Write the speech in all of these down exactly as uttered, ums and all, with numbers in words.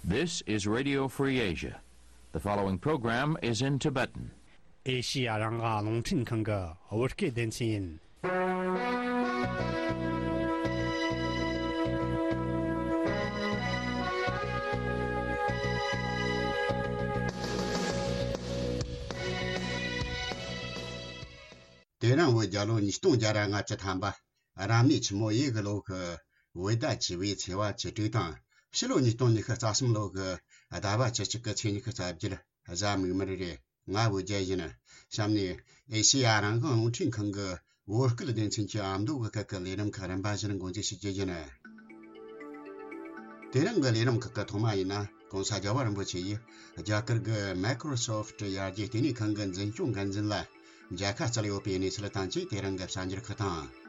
This is Radio Free Asia. The following program is in Tibetan. ཨེ་ཤི་ཡ་རང་དབང་རླུང་འཕྲིན་ཁང་གི་བོད་སྐད་སྡེ་ཚན་ཡིན། དེ་རིང་བོད་རྒྱལ་ལོ་ཉིས་སྟོང་བརྒྱ་ར་ལྔ་བཅུ་ཐམ་པ། རབ་གནས་ཆུ་མོ་ཡོས་གི་ལོ་གི་བོད་ཟླ་བཅུ་པའི་ཚེས་པ་བཅུ་དྲུག་དང་། ཕྱི་ལོ་ཉིས་སྟོང་ཉི་ཤུ་རྩ་གསུམ་ལོ་གི་ཟླ་བ་བཅུ་གཅིག་གི་ཚེས་ཉི་ཤུ་རྩ་བརྒྱད། གཟའ་མིག་དམར་རེད། ང་བོད་རྒྱལ་ཡིན། གཤམ་ནས་ཨེ་ཤེ་ཡ་རང་དབང་རླུང་འཕྲིན་ཁང་གི་བོད་སྐད་སྡེ་ཚན་གྱི་ཨ་མདོ་གི་སྐད་ཀྱི་ལས་རིམ་ཁག་རིམ་པ་བཞིན་འགོ་འཛུགས་ཞུ་རྒྱུ་ཡིན། དེ་རིང་གི་ལས་རིམ་ཁག་གི་ཐོག་མ་ཡིན་ན། གོང་ས་རྒྱལ་བ་རིན་པོ་ཆེ་ཡིས་རྒྱ་གར་གྱི་Microsoft ཡར་རྒྱས་ལྟེ་གནས་ཁང་གི་འཛིན་སྐྱོང་འགན་འཛིན་ལ་མཇལ་ཁ་བསྩལ་ཡོད་པའི་གནས་ཚུལ་དང་བཅས། དེ་རིང་གི་གསར་འགྱུར་ཁག་དང་།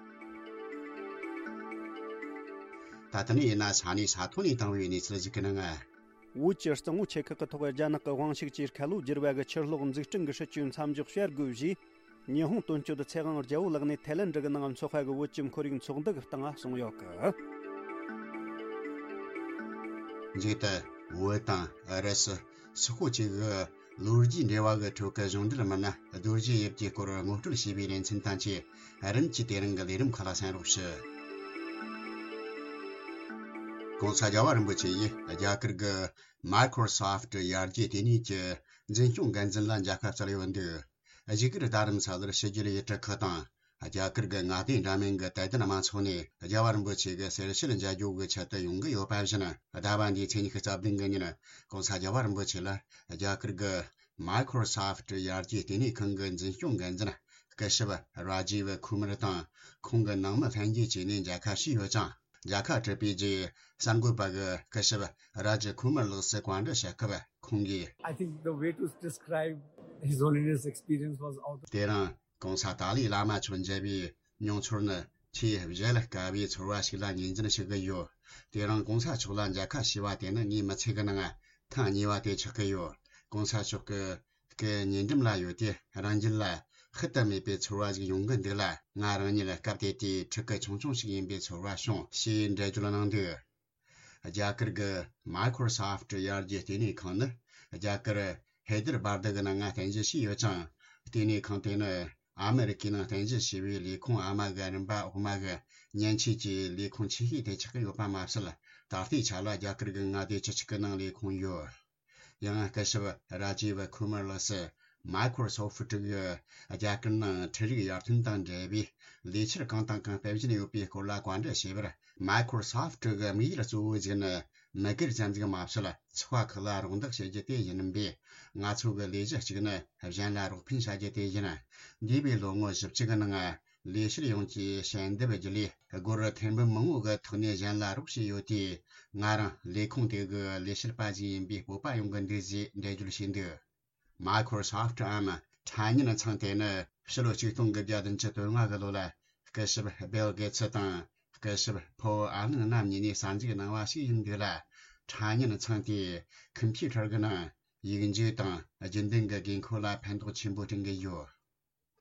ད་ལྟ་ནས་ཡིན་ན་ས་གནས་ས་ཐོག་ནས་བཏང་བའི་གནས་ཚུལ་ཞིག་གི་ནང་། བོད་ཀྱི་གཙང་བོ་ཆེ་ཁག་གི་ཐོག་རྒྱ་ནག་གི་དབང་ཤུགས་ཀྱིས་ཁ་ལོ་བསྒྱུར་བ་གི་ཆུ་གློག་འཛུགས་སྐྲུན་གྱི་སྲིད་ཇུས་མཚམས་འཇོག་བྱ་དགོས་ཞེས། ཉི་ཧོང་དོན་གཅོད་ཚེ་དབང་རྒྱལ་པོ་ལགས་ནས་ཐའི་ལན་ཌི་གི་ནང་འཚོགས་པ་གི་བོད་ཀྱི་ཁོར་ཡུག་ཚོགས་འདུ་གི་སྟེང་གསུངས་ཡོད་གི། མཇུག་ཏུ། བོད་དང་ཨུ་རུ་སུ། སོག་པོ་བཅས་ཀྱི་ལོ་རྒྱུས་འབྲེལ་བ་གི་ཁྲོད་ཀྱི་གཞུང་འབྲེལ་མི་སྣ་རྡོ་རྗེ་ཡིབ་ཀྱི་སྐོར་ངོ་སྤྲོད་བྱས་པའི་ལེ་ཚན་དང་བཅས། རིམ་གྱིས་དེ་རིང་གི་ལས་རིམ་ཁག་ལ་གསན་རོགས་ཞུ། གོང་ས་རྒྱལ་བ་རིན་པོ་ཆེ་ཡིས་རྒྱ་གར་གྱི་Microsoft ཡར་རྒྱས་ལྟེ་གནས་ཀྱི་འཛིན་སྐྱོང་འགན་འཛིན་ལ་མཇལ་ཁ་བསྩལ་ཡོད་འདུག། བཞུགས་སྒར་རྡ་རམ་ས་ལར་ཕྱི་རྒྱལ་ཡུལ་གྲུ་ཁག་དང་། རྒྱ་གར་གྱི་མངའ་སྡེ་འདྲ་མིན་གྱི་དད་ལྡན་མང་ཚོགས་ནས་རྒྱལ་བ་རིན་པོ་ཆེ་གི་གསེར་ཞལ་མཇལ་རྒྱུ་གི་ཆེད་དུ་ཡོང་གི་ཡོད་པ་བཞིན། ཟླ་བ་འདིའི་ཚེས་ཉི་ཤུ་རྩ་བདུན་གི་ཉིན། གོང་ས་རྒྱལ་བ་རིན་པོ་ཆེ་ལ་རྒྱ་གར་གྱི་Microsoft ཡར་རྒྱས་ལྟེ་གནས་ཁང་གི་འཛིན་སྐྱོང་འགན་འཛིན་སྐུ་ཞབས་ར་ཇིབ་ཁུ་མར་དང་། ཁོང་གི་ནང་མི་ལྷན་རྒྱས་བཅས་ནས་མཇལ་ཁ་ཞུས་ཡོད་ཅིང་། མཇལ་ཁ་གྲུབ་པའི་རྗེས་གསར་འགོད་པ་གིས་སྐུ་ཞབས་ར་ཇིབ་ཁུ་མར་ལགས་སུ་བཀའ་འདྲི་ཞུ་སྐབས། ཁོང་གིས། I think the way to describe His Holiness' experience was out of དེ་རིང་གོང་ས་ཏཱ་ལའི་བླ་མ་མཆོག་མཇལ་བའི་མྱོང་ཚོར་ནི་ཆེས་གཞལ་དཀའ་བའི་ཚོར་བ་ཞིག་ལ་ངོས་འཛིན་ཞུ་གི་ཡོད། དེ་རིང་གོང་ས་མཆོག་ལ་མཇལ་ཁ་ཞུས་པ་དེ་ནི་ངའི་མི་ཚེ་གི་ནང་ཐེངས་གཉིས་པ་དེ་ཆགས་ཀྱི་ཡོད། གོང་ས་མཆོག་གི་སྐུ་ཉེ་འགྲམ་ལ་ཡོད་དུས་རང་རྒྱུད་ལ་ཤུལ་དུ་མེད་པའི་ཚོར་བ་ཞིག་ཡོང་གི་འདུག་ལ། ང་རང་ཉིད་སྐབས་དེ་དུས་ཕྲུ་གུ་ཆུང་ཆུང་ཞིག་ཡིན་པའི་ཚོར་བ་བྱུང་ཞེས་འགྲེལ་བརྗོད་གནང་འདུག། རྒྱ་གར་གྱི་Microsoft ཡར་རྒྱས་ལྟེ་གནས་ཁང་ནི་རྒྱ་གར་ཧེ་དར་བར་དི་གི་ནང་ང་རྟེན་གཞི་བྱས་ཡོད་ཅིང་། ལྟེ་གནས་ཁང་དེ་ནི་ཨ་མེ་རི་ཀའི་ནང་རྟེན་གཞི་བྱས་པའི་ལས་ཁུངས་ཨ་མ་གི་རིམ་པ་འོག་མ་གི་མཉེན་ཆས་ཀྱི་ལས་ཁུངས་ཆེ་ཤོས་དེ་ཆགས་ཀྱི་ཡོད་པ་མ་ཟད། ད་ལྟའི་ཆ་ལ་རྒྱ་གར་གྱི་མངའ་སྡེ་བཅུ་གཅིག་གི་ནང་ལས་ཁུངས་ཡོད། ཡང་སྐུ་ཞབས་ར་ཇིབ་ཁུ་མར་ལགས་སུ་Microsoft གི་རྒྱ་གར་ནང་འཕྲུལ་རིག་ཡར་ཐོན་དང་འབྲེལ་བའི་ལས་འཆར་གང་དང་གང་སྤེལ་བཞིན་ཡོད་པའི་སྐོར་ལ་བཀའ་འདྲི་བྱས་པར། Microsoft གི་དམིགས་ཡུལ་གཙོ་བོ་ཞིག་ནི་མི་སྒེར་ཙམ་ཞིག་མ་ཟད། ཚོགས་པ་ཁག་ལ་རོགས་འདེགས་བྱེད་རྒྱུ་དེ་ཡིན་པས། ང་ཚོ་གི་ལས་གཞི་གཅིག་ནི་གཞན་ལ་རོགས་ཕན་བྱ་རྒྱུ་དེ་ཡིན། འདས་པའི་ལོ་ངོ་བཞི་བཅུ་གི་ནང་། ལས་བྱེད་ཡོངས་ཀྱིས་ཞལ་འདེབས་བརྒྱུད་ལས་སྒོར་ཐེར་འབུམ་མང་བོ་གི་ཐོག་ནས་གཞན་ལ་རོགས་བྱས་ཡོད་དུས། ང་རང་ལས་ཁུངས་དེ་གི་ལས་བྱེད་པ་ཞིག་ཡིན་པའི་སྤོབས་པ་ཡོང་གི་འདུག་ཅེས་འགྲེལ་བརྗོད་བྱས་འདུག། Microsoft འམ་ཕྲ་མཉེན་ཚང་དེ་ནི་ཕྱི་ལོ་ཆིག་སྟོང་དགུ་བརྒྱ་བདུན་ཅུ་དོན་ལྔ་གི་ལོ་ལ་སྐུ་ཞབས་Bill Gates དང་སྐུ་ཞབས་Paul Allen རྣམ་གཉིས་ནས་གསར་འཛུགས་གནང་བ་ཞིག་ཡིན་འདུག་ལ། ཕྲ་མཉེན་ཚང་དེས་ཁམ་པུ་ཊར་གི་ནང་ཡིག་འཇུག་དང་རྒྱུན་ལྡན་གྱི་དགོས་མཁོ་ལ་ཕན་ཐོགས་ཆེན་པོ་བསྐྲུན་གྱི་ཡོད།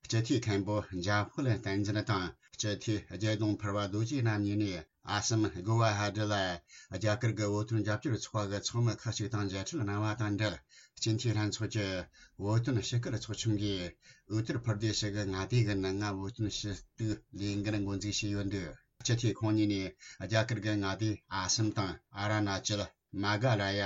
སྤྱི་འཐུས་མཁན་པོ་འཇམ་དཔལ་བསྟན་འཛིན་དང་། སྤྱི་འཐུས་རྒྱལ་ལྡོང་ཕུར་བ་རྡོ་རྗེ་རྣམ་གཉིས་ནས། ཨ་སམ་གོ་བ་ཧ་ཏི་ལ་རྒྱ་གར་གྱི་བོད་དོན་རྒྱབ་སྐྱོར་ཚོགས་པ་གི་ཚོགས་མི་ཁག་ཅིག་དང་མཇལ་འཕྲད་གནང་བ་དང་འབྲེལ། སྤྱི་འཐུས་ལྷན་ཚོགས་ཀྱི་བོད་དོན་ཞུ་སྐུལ་ཚོགས་ཆུང་གིས་ཨུ་ཏར་པར་དེ་ཤི་གི་མངའ་སྡེ་གི་ནང་ང་བོད་དོན་ཞུ་གཏུག་ལས་འགུལ་འགོ་འཛུགས་བྱས་ཡོད་འདུག། སྤྱི་འཐུས་ཁོང་གཉིས་ནས་རྒྱ་གར་གྱི་མངའ་སྡེ་ཨ་སམ་དང་ཨ་ར་ན་ཅལ། མ་ག་ལ་ཡ།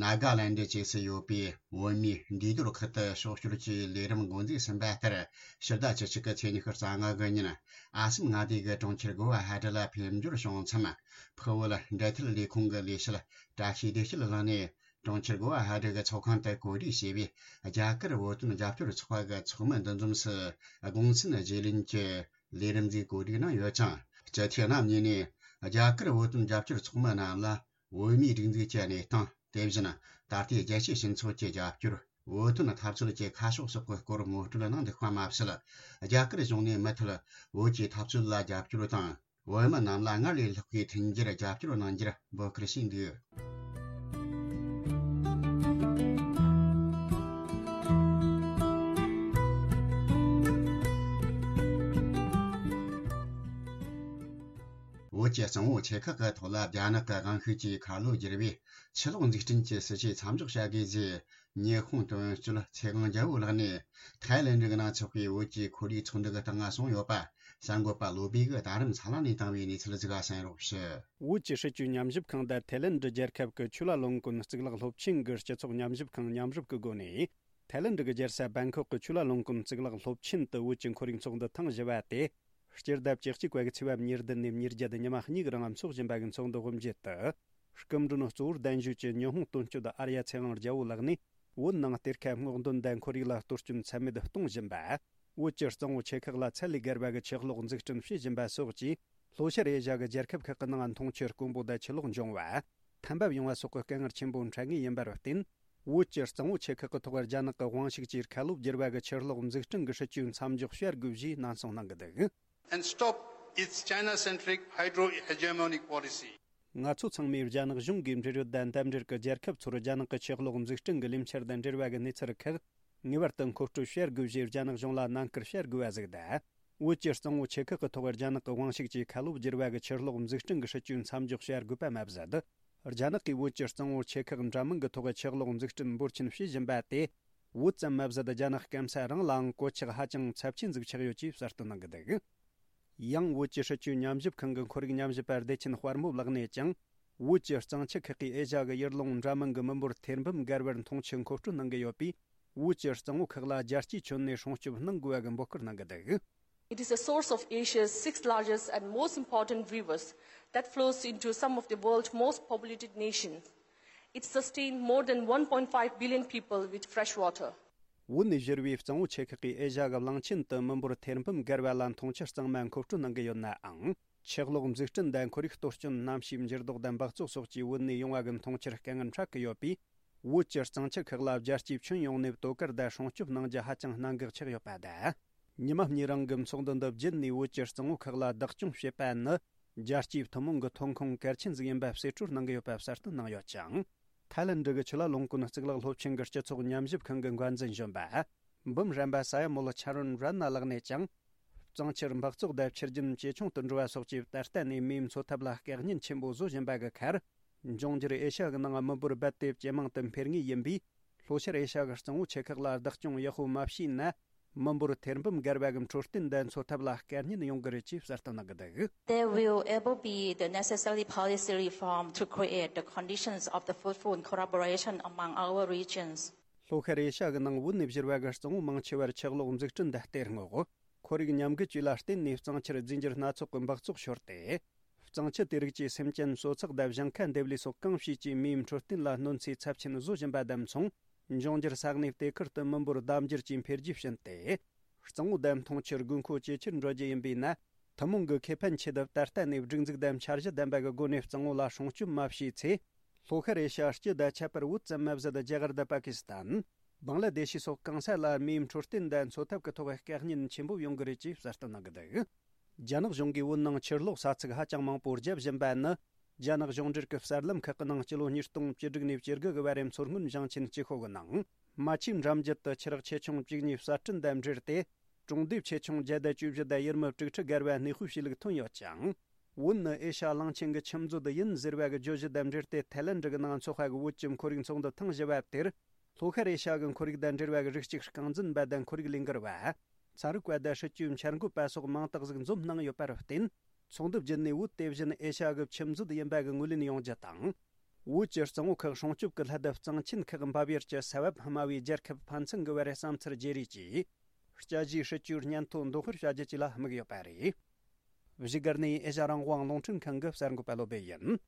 ནཱ་ག་ལན་ཌི་བཅས་སུ་ཡོད་པའི་བོད་མིའི་འདུས་སྡོད་ཁུལ་དུ་ཕྱོགས་བསྐྱོད་ཀྱི་ལས་རིམ་འགོ་འཛུགས་ཟིན་པ་ལྟར། ཕྱི་ཟླ་བཅུ་གཅིག་གི་ཚེས་ཉི་ཤུ་རྩ་ལྔ་གི་ཉིན། ཨ་སམ་མངའ་སྡེ་གི་གྲོང་ཁྱེར་གོ་བ་ཧ་ཏི་ལ་ཕེབས་འབྱོར་བྱུང་མཚམས། ཕུ་བོ་ལ་འབྲེལ་མཐུད་ལས་ཁུངས་ཀྱི་ལས་བྱེད་བཀྲ་ཤིས་བདེ་སྐྱིད་ལགས་ནས། གྲོང་ཁྱེར་གོ་བ་ཧ་ཏི་གི་ཚོགས་ཁང་དུ་གོ་སྒྲིག་བྱས་པའི་རྒྱ་གར་བོད་དོན་རྒྱབ་སྐྱོར་ཚོགས་པ་གི་ཚོགས་མི་འདུ་འཛོམས་སུ་དགོངས་ཚུལ་བརྗེ་ལེན་གྱི་ལས་རིམ་ཞིག་གོ་སྒྲིག་གནང་ཡོད་ཅིང་། སྤྱི་འཐུས་རྣམ་གཉིས་ནས་རྒྱ་གར་བོད་དོན་རྒྱབ་སྐྱོར་ཚོགས་མི་རྣམས་ལ། བོད་མིའི་སྒྲིག་འཛུགས་ཀྱི་གནས་སྟངས། དེ་བཞིན་ད་ལྟའི་རྒྱལ་སྤྱིའི་སྤྱི་ཚོགས་ཀྱི་རྒྱབ་སྐྱོར། བོད་དོན་འཐབ་རྩོད་ཀྱི་ཁ་ཕྱོགས་སོགས་ཀྱི་སྐོར་ངོ་སྤྲོད་གནང་འདུག་པ་མ་ཟད། རྒྱ་གར་གཞུང་ནས་མུ་མཐུད་བོད་ཀྱི་འཐབ་རྩོད་ལ་རྒྱབ་སྐྱོར་དང་། བོད་མི་རྣམས་ལ་སྔར་ལས་ལྷག་པའི་མཐུན་འགྱུར་རྒྱབ་སྐྱོར་གནང་རྒྱུར་འབོད་སྐུལ་བྱས་འདུག། བོད་ཀྱི་གཙང་བོ་ཆེ་ཁག་གི་ཐོག་ལ་རྒྱ་ནག་གི་དབང་ཤུགས་ཀྱིས་ཁ་ལོ་བསྒྱུར་བའི་ཆུ་གློག་འཛུགས་སྐྲུན་གྱི་སྲིད་བྱུས་མཚམས་འཇོག་བྱ་དགོས་ཞེས་ཉི་ཧོང་དོན་གཅོད་ཚེ་དབང་རྒྱལ་པོ་ལགས་ནས་ཐའི་ལེན་ཌི་གི་ནང་འཚོགས་པའི་བོད་ཀྱི་ཁོར་ཡུག་ཚོགས་འདུ་གི་སྟེང་གསུངས་ཡོད་པ། གསར་འགོད་པ་བློ་བྷེ་གིས་རྡ་རམ་ས་ལ་ནས་བཏང་བའི་གནས་ཚུལ་ཞིག་གསན་རོགས་ཞུ། བོད་ཀྱི་སྲིད་བྱུས་ཉམས་ཞིབ་ཁང་དང་ཐའི་ལེན་ཌི་རྒྱལ་ཁབ་ཀྱི་ཆུ་ལ་ལུང་ཀུན་གཙུག་ལག་སློབ་ཆེན་གྱི་སྤྱི་ཚོགས་ཉམས་ཞིབ་ཁང་མཉམ་རུབ་ཀྱི་སྒོ་ནས། ཐའི་ལེན་ཌི་གི་རྒྱལ་ས་བེང་ཁོག་གི་ཆུ་ལ་ལུང་ཀུན་གཙུག་ལག་སློབ་ཆེན་དུ་བོད་ཀྱི་ཁོར་ཡུག་ཚོགས་འདུ་ཐེངས་བཞི་པ་དེ། སྤྱི་ཟླ་བཅུ་གཅིག་པ་གི་ཚེས་པ་ཉེར་བདུན་ནས་ཉེར་བརྒྱད་ཉི་མ་གཉིས་རིང་འཚོགས་བཞིན་པ་གི་ཚོགས་འདུ་དབུ་འབྱེད་དུ། སྐུ་མགྲོན་གཙོ་བོར་གདན་ཞུས་ཀྱིས་ཉི་ཧོང་དོན་གཅོད་ཨར་ཡ་ཚེ་དབང་རྒྱལ་པོ་ལགས་ནས། བོད་ནང་གཏེར་ཁ་སྔོག་འདོན་དང་ཁོར་ཡུག་ལ་གཏོར་སྐྱོན་ཚད་མེད་གཏོང་བཞིན་པ། བོད་ཀྱི་གཙང་བོ་ཆེ་ཁག་ལ་ཚད་ལས་བརྒལ་བ་གི་ཆུ་གློག་འཛུགས་སྐྲུན་བྱེད་བཞིན་པ་སོགས་ཀྱིས། ལྷོ་ཤར་ཨེ་ཤ་གི་རྒྱལ་ཁབ་ཁག་གི་ནང་འཐུང་ཆུ་དཀོན་པོ་དང་ཆུ་ལོག་འབྱུང་བ། ཐན་འབབ་ཡོང་བ་སོགས་ཀྱི་དཀའ་ངལ་ཆེན་པོ་འཕྲད་ངེས་ཡིན་པར་བརྟེན། བོད་ཀྱི་གཙང་བོ་ཆེ་ཁག་གི་ཐོག་རྒྱ་ནག་གི་དབང་ཤུགས་ཀྱིས་ཁ་ལོ་བསྒྱུར་བ་གི་ཆུ་གློག་འཛུགས་སྐྲུན་གྱི་སྲིད་ཇུས་མཚམས་འཇོག་བྱ་དགོས་ཞེས་ནན་གསུངས་གནང་གི་འདུག། And stop its China-centric hydro-hegemonic policy. ང་ཚོ་ཚང་མས་རྒྱ་ནག་གཞུང་གིས་འབྲེལ་ཡོད་དང་འདེམས་འབྲེལ་གྱི་རྒྱལ་ཁབ་ཚོར་རྒྱ་ནག་གི་ཆུ་གློག་འཛུགས་སྐྲུན་གྱི་ལས་འཆར་དང་འབྲེལ་བ་གྱི་གནས་ཚུལ་ཁག་ངེས་པར་དུ་མཁོ་སྤྲོད་བྱ་དགོས་ཞེས་རྒྱ་ནག་གཞུང་ལ་ནན་སྐུལ་བྱ་དགོས་པ་ཞིག་དང་། བོད་ཀྱི་གཙང་བོ་ཆེ་ཁག་གི་ཐོག་རྒྱ་ནག་གི་དབང་ཤུགས་ཀྱིས་ཁ་ལོ་བསྒྱུར་བ་གི་ཆུ་གློག་འཛུགས་སྐྲུན་གྱི་སྲིད་ཇུས་མཚམས་འཇོག་བྱ་དགོས་པ་མ་ཟད། རྒྱ་ནག་གིས་བོད་ཀྱི་གཙང་བོ་ཆེ་ཁག་འདྲ་མིན་གྱི་ཐོག་ཆུ་གློག་འཛུགས་སྐྲུན་འབོར་ཆེན་བྱེད་བཞིན་པ་དེ། བོད་ཙམ་མ་ཟད་རྒྱ་ནག་སྐམ་ས་རང་ལའང་གོད་ཆག་ཧ་ཅང་ཚབས་ཆེན་ཟིག་ཆགས་ཡོད་ཅེས་གསལ་སྟོན་གནང་གི་འདུག། ཡང་བོད་ཀྱི་སྲིད་བྱུས་ཉམས་ཞིབ་ཁང་གི་ཁོར་ཡུག་ཉམས་ཞིབ་པ་བདེ་ཆེན་དཔལ་མོ་ལགས་ནས་ཀྱང་། བོད་ཀྱི་གཙང་ཆུ་ཁག་གིས་ཨེ་ཤ་གི་ཡུལ་ལུང་འདྲ་མིན་གྱི་མི་འབོར་ཐེར་འབུམ་བརྒལ་བར་འཐུང་ཆུ་མཁོ་སྤྲོད་གནང་གི་ཡོད་པས། བོད་ཀྱི་གཙང་བོ་ཁག་ལ་རྒྱལ་སྤྱིའི་ཁྱོན་ནས་སྲུང་སྐྱོབ་གནང་དགོས་པ་གི་འབོད་སྐུལ་གནང་གི་འདུག། It is a source of Asia's sixth largest and most important rivers that flows into some of the world's most populated nations. It sustains more than one point five billion people with fresh water. བོད་ནས་བཞུར་བའི་གཙང་བོ་ཆེ་ཁག་གིས་ཨེ་ཤ་གི་གླིང་ཆེན་དུ་མི་འབོར་ཐེར་འབུམ་བརྒལ་བ་ལ་འཐུང་ཆུ་གཙང་མ་མཁོ་སྤྲོད་གནང་གི་ཡོད་ནའང་། ཆུ་གློག་འཛུགས་སྐྲུན་དང་ཁོར་ཡུག་གཏོར་སྐྱོན་གནམ་གཤིས་འགྱུར་ལྡོག་དང་འབག་བཙོག་སོགས་ཀྱིས་བོད་ནས་ཡོང་བ་གི་འཐུང་ཆུར་དཀའ་ངལ་འཕྲད་ཀྱི་ཡོད་པས། བོད་ཀྱི་གཙང་ཆུ་ཁག་ལ་རྒྱལ་སྤྱིའི་ཁྱོན་ཡོངས་ནས་དོ་ཁུར་དང་སྲུང་སྐྱོབ་གནང་རྒྱུ་ཧ་ཅང་གནད་འགག་ཆགས་ཡོད་པ་དང་། ཉི་མ་གཉིས་རིང་གི་ཚོགས་འདུ་འདི་བརྒྱུད་ནས་བོད་ཀྱི་གཙང་བོ་ཁག་ལ་བདག་སྐྱོང་བྱེད་པ་ནི། རྒྱལ་སྤྱིའི་ཐུན་མོང་གི་ཐོན་ཁུངས་གལ་ཆེན་ཟིག་ཡིན་པ་གསེད་བཀྲོལ་གནང་གི་ཡོད་པ་གསལ་སྟོན་གནང་ཡོད་ཅིང་། ཐའི་ལེན་ཌི་གི་ཆུ་ལ་ལུང་ཀུན་གཙུག་ལག་སློབ་ཆེན་གྱི་སྤྱི་ཚོགས་ཉམས་ཞིབ་ཁང་གི་འགན་འཛིན་གཞོན་པ། འབུམ་རམས་པ་ས་ཡ་མོལ་ཆ་རོན་རན་ན་ལགས་ནས་ཀྱང་། གཙང་ཆུར་འབག་བཙོག་དང་ཆུ་རྒྱུན་ཇེ་ཆུང་དུ་འགྲོ་བ་སོགས་ཀྱིས་ད་ལྟ་ནས་མིའི་འཚོ་ཐབས་ལ་དཀའ་ཉེན་ཆེན་པོ་བཟོ་བཞིན་པ་གི་ཁར། འབྱུང་འགྱུར་ཨེ་ཤ་གི་ནང་མི་འབོར་རྦད་དེ་ཇེ་མང་དུ་འཕེལ་ངེས་ཡིན་པས། ལྷོ་ཤར་ཨེ་ཤ་གི་གཙང་བོ་ཆེ་ཁག་ལ་བདག་སྐྱོང་ཡག་པོ་མ་བྱས་ན། མི་འབོར་ཐེར་འབུམ་བརྒལ་བ་གི་འཕྲོད་བསྟེན་དང་འཚོ་ཐབས་ལ་དཀའ་ཉེན་ཡོང་གི་རེད་ཅེས་གསལ་སྟོན་གནང་གི་འདུག། There will able be the necessary policy reform to create the conditions of the fruitful collaboration among our regions. ལྷོ་ཤར་ཨེ་ཤ་གི་ནང་བོད་ནས་བཞུར་བ་གི་གཙང་བོ་མང་ཆེ་བར་ཆུ་གློག་འཛུགས་སྐྲུན་དང་གཏེར་སྔོག་ཁོར་ཡུག་ཉམས་རྒུད་བཅས་ལ་བརྟེན་ནས་གཙང་ཆུར་རྫས་འགྱུར་སྣ་ཚོགས་ཀྱི་འབག་བཙོག་ཤོར་ཏེ། གཙང་ཆུ་དེ་རིགས་ཀྱིས་སེམས་ཅན་གསོ་ཚགས་དང་ཞིང་ཁ་འདེབས་ལས་སོགས་གང་བྱས་ཀྱང་མིའི་འཕྲོད་བསྟེན་ལ་གནོད་འཚེ་ཚབས་ཆེན་བཟོ་བཞིན་པ་དང་མཚུངས། འབྱུང་འགྱུར་ས་གནས་དེ་ཁུལ་དུ་མི་འབོར་ལྡབ་འགྱུར་གྱིས་འཕེལ་རྒྱས་ཕྱིན་ཏེ། གཙང་བོ་དང་འཐུང་ཆུར་དགོས་མཁོ་ཇེ་ཆེར་འགྲོ་རྒྱུ་ཡིན་པས་ན། ཐུན་མོང་གི་ཁེ་ཕན་ཆེད་དུ་ད་ལྟ་ནས་སྒྲིག་འཛུགས་དང་འཆར་གཞི་ལྡན་པ་གི་སྒོ་ནས་གཙང་བོ་ལ་སྲུང་སྐྱོབ་མ་བྱས་ཚེ། ལྷོ་ཤར་ཨེ་ཤ་སྤྱི་དང་ཁྱད་པར་བོད་ཙམ་མ་ཟད་རྒྱ་གར་དང་པ་ཀི་སི་ཐན། བང་ལ་དེ་ཤི་སོགས་གང་ས་ལ་མིའི་འཕྲོད་བསྟེན་དང་འཚོ་ཐབས་ཀྱི་ཐོག་དཀའ་ཉེན་ཆེན་པོ་ཡོང་གི་རེད་ཅེས་གསལ་སྟོན་གནང་གི་འདུག། རྒྱ་ནག་གཞུང་གིས་བོད་ནང་ཆུ་གློག་ས་ཚིགས་ཧ་ཅང་མང་པོ་བརྒྱབ་བཞིན་པ་ནི། རྒྱ་ནག་གཞུང་འབྲེལ་གྱི་གསར་ལམ་ཁག་གི་ནང་སྤྱི་ལོ་ཉིས་སྟོང་བཅུ་དྲུག་ནས་བཅུ་དགུ་གི་བར་རིམ་མཚོ་སྔོན་ཞིང་ཆེན་སྤྱི་ཁོག་གི་ནང་། རྨ་ཆུའི་འགྲམ་རྒྱུད་དུ་ཆུ་རགས་ཆེ་ཆུང་བཅུ་གཉིས་གསར་སྐྲུན་དང་འབྲེལ་ཏེ། གྲོང་སྡེ་ཆེ་ཆུང་བརྒྱ་དང་བཅུ་བཞི་དང་ཡུལ་མི་དྲུག་ཁྲི་བརྒལ་བ་གནས་སྤོས་བྱས་ལུགས་ཐོན་ཡོད་ཅིང་། བོད་ནི་ཨེ་ཤ་གླིང་ཆེན་གྱི་ཆུ་མཛོད་ཡིན་ཟེར་བ་གི་བརྗོད་གཞི་དང་འབྲེལ་ཏེ་ཐའི་ལེན་ཌི་གི་ནང་འཚོགས་པ་གི་བོད་ཀྱི་ཁོར་ཡུག་ཚོགས་འདུ་ཐེངས་བཞི་པ་དེར། ལྷོ་ཤར་ཨེ་ཤ་གི་ཁོར་ཡུག་དང་འབྲེལ་བ་གི་རིགས་གཅིག་རྐང་འཛིན་པ་དང་ཁོར་ཡུག་ལས་འགུལ་བ། ཚན་རིག་པ་དང་སྲིད་བྱུས་འཆར་འགོད་པ་སོགས་མང་དག་ཟིག་འཛོམས་གནང་ཡོད་པར་བརྟེན། ཚོགས་འདུ་བརྒྱུད་ནས་བོད་དེ་བཞིན་ཨེ་ཤ་གི་ཆུ་མཛོད་ཡིན་པ་གི་ངོས་ལེན་ཡོང་རྒྱུ་དང་། བོད་ཀྱི་གཙང་བོ་ཁག་སྲུང་སྐྱོབ་ཀྱི་སླད་དུ་གཙང་ཆེན་ཁག་འབབ་ཡུལ་གྱི་ས་བབ་དམའ་བའི་རྒྱལ་ཁབ་ཕན་ཚུན་གྱི་བར་བསམ་ཚུལ་བརྗེ་རེས་ཀྱིས། དཔྱད་གཞིའི་སྲིད་བྱུས་སྙན་ཐོ་འདོན་སྤེལ་བྱ་རྒྱུ་བཅས་ལ་དམིགས་ཡོད་པ་རེད། བཞུགས་སྒར་ནས་ཨེ་ཤ་རང་དབང་རླུང་འཕྲིན་ཁང་གི་གསར་འགོད་པ་བློ་བྷེ་ཡིན།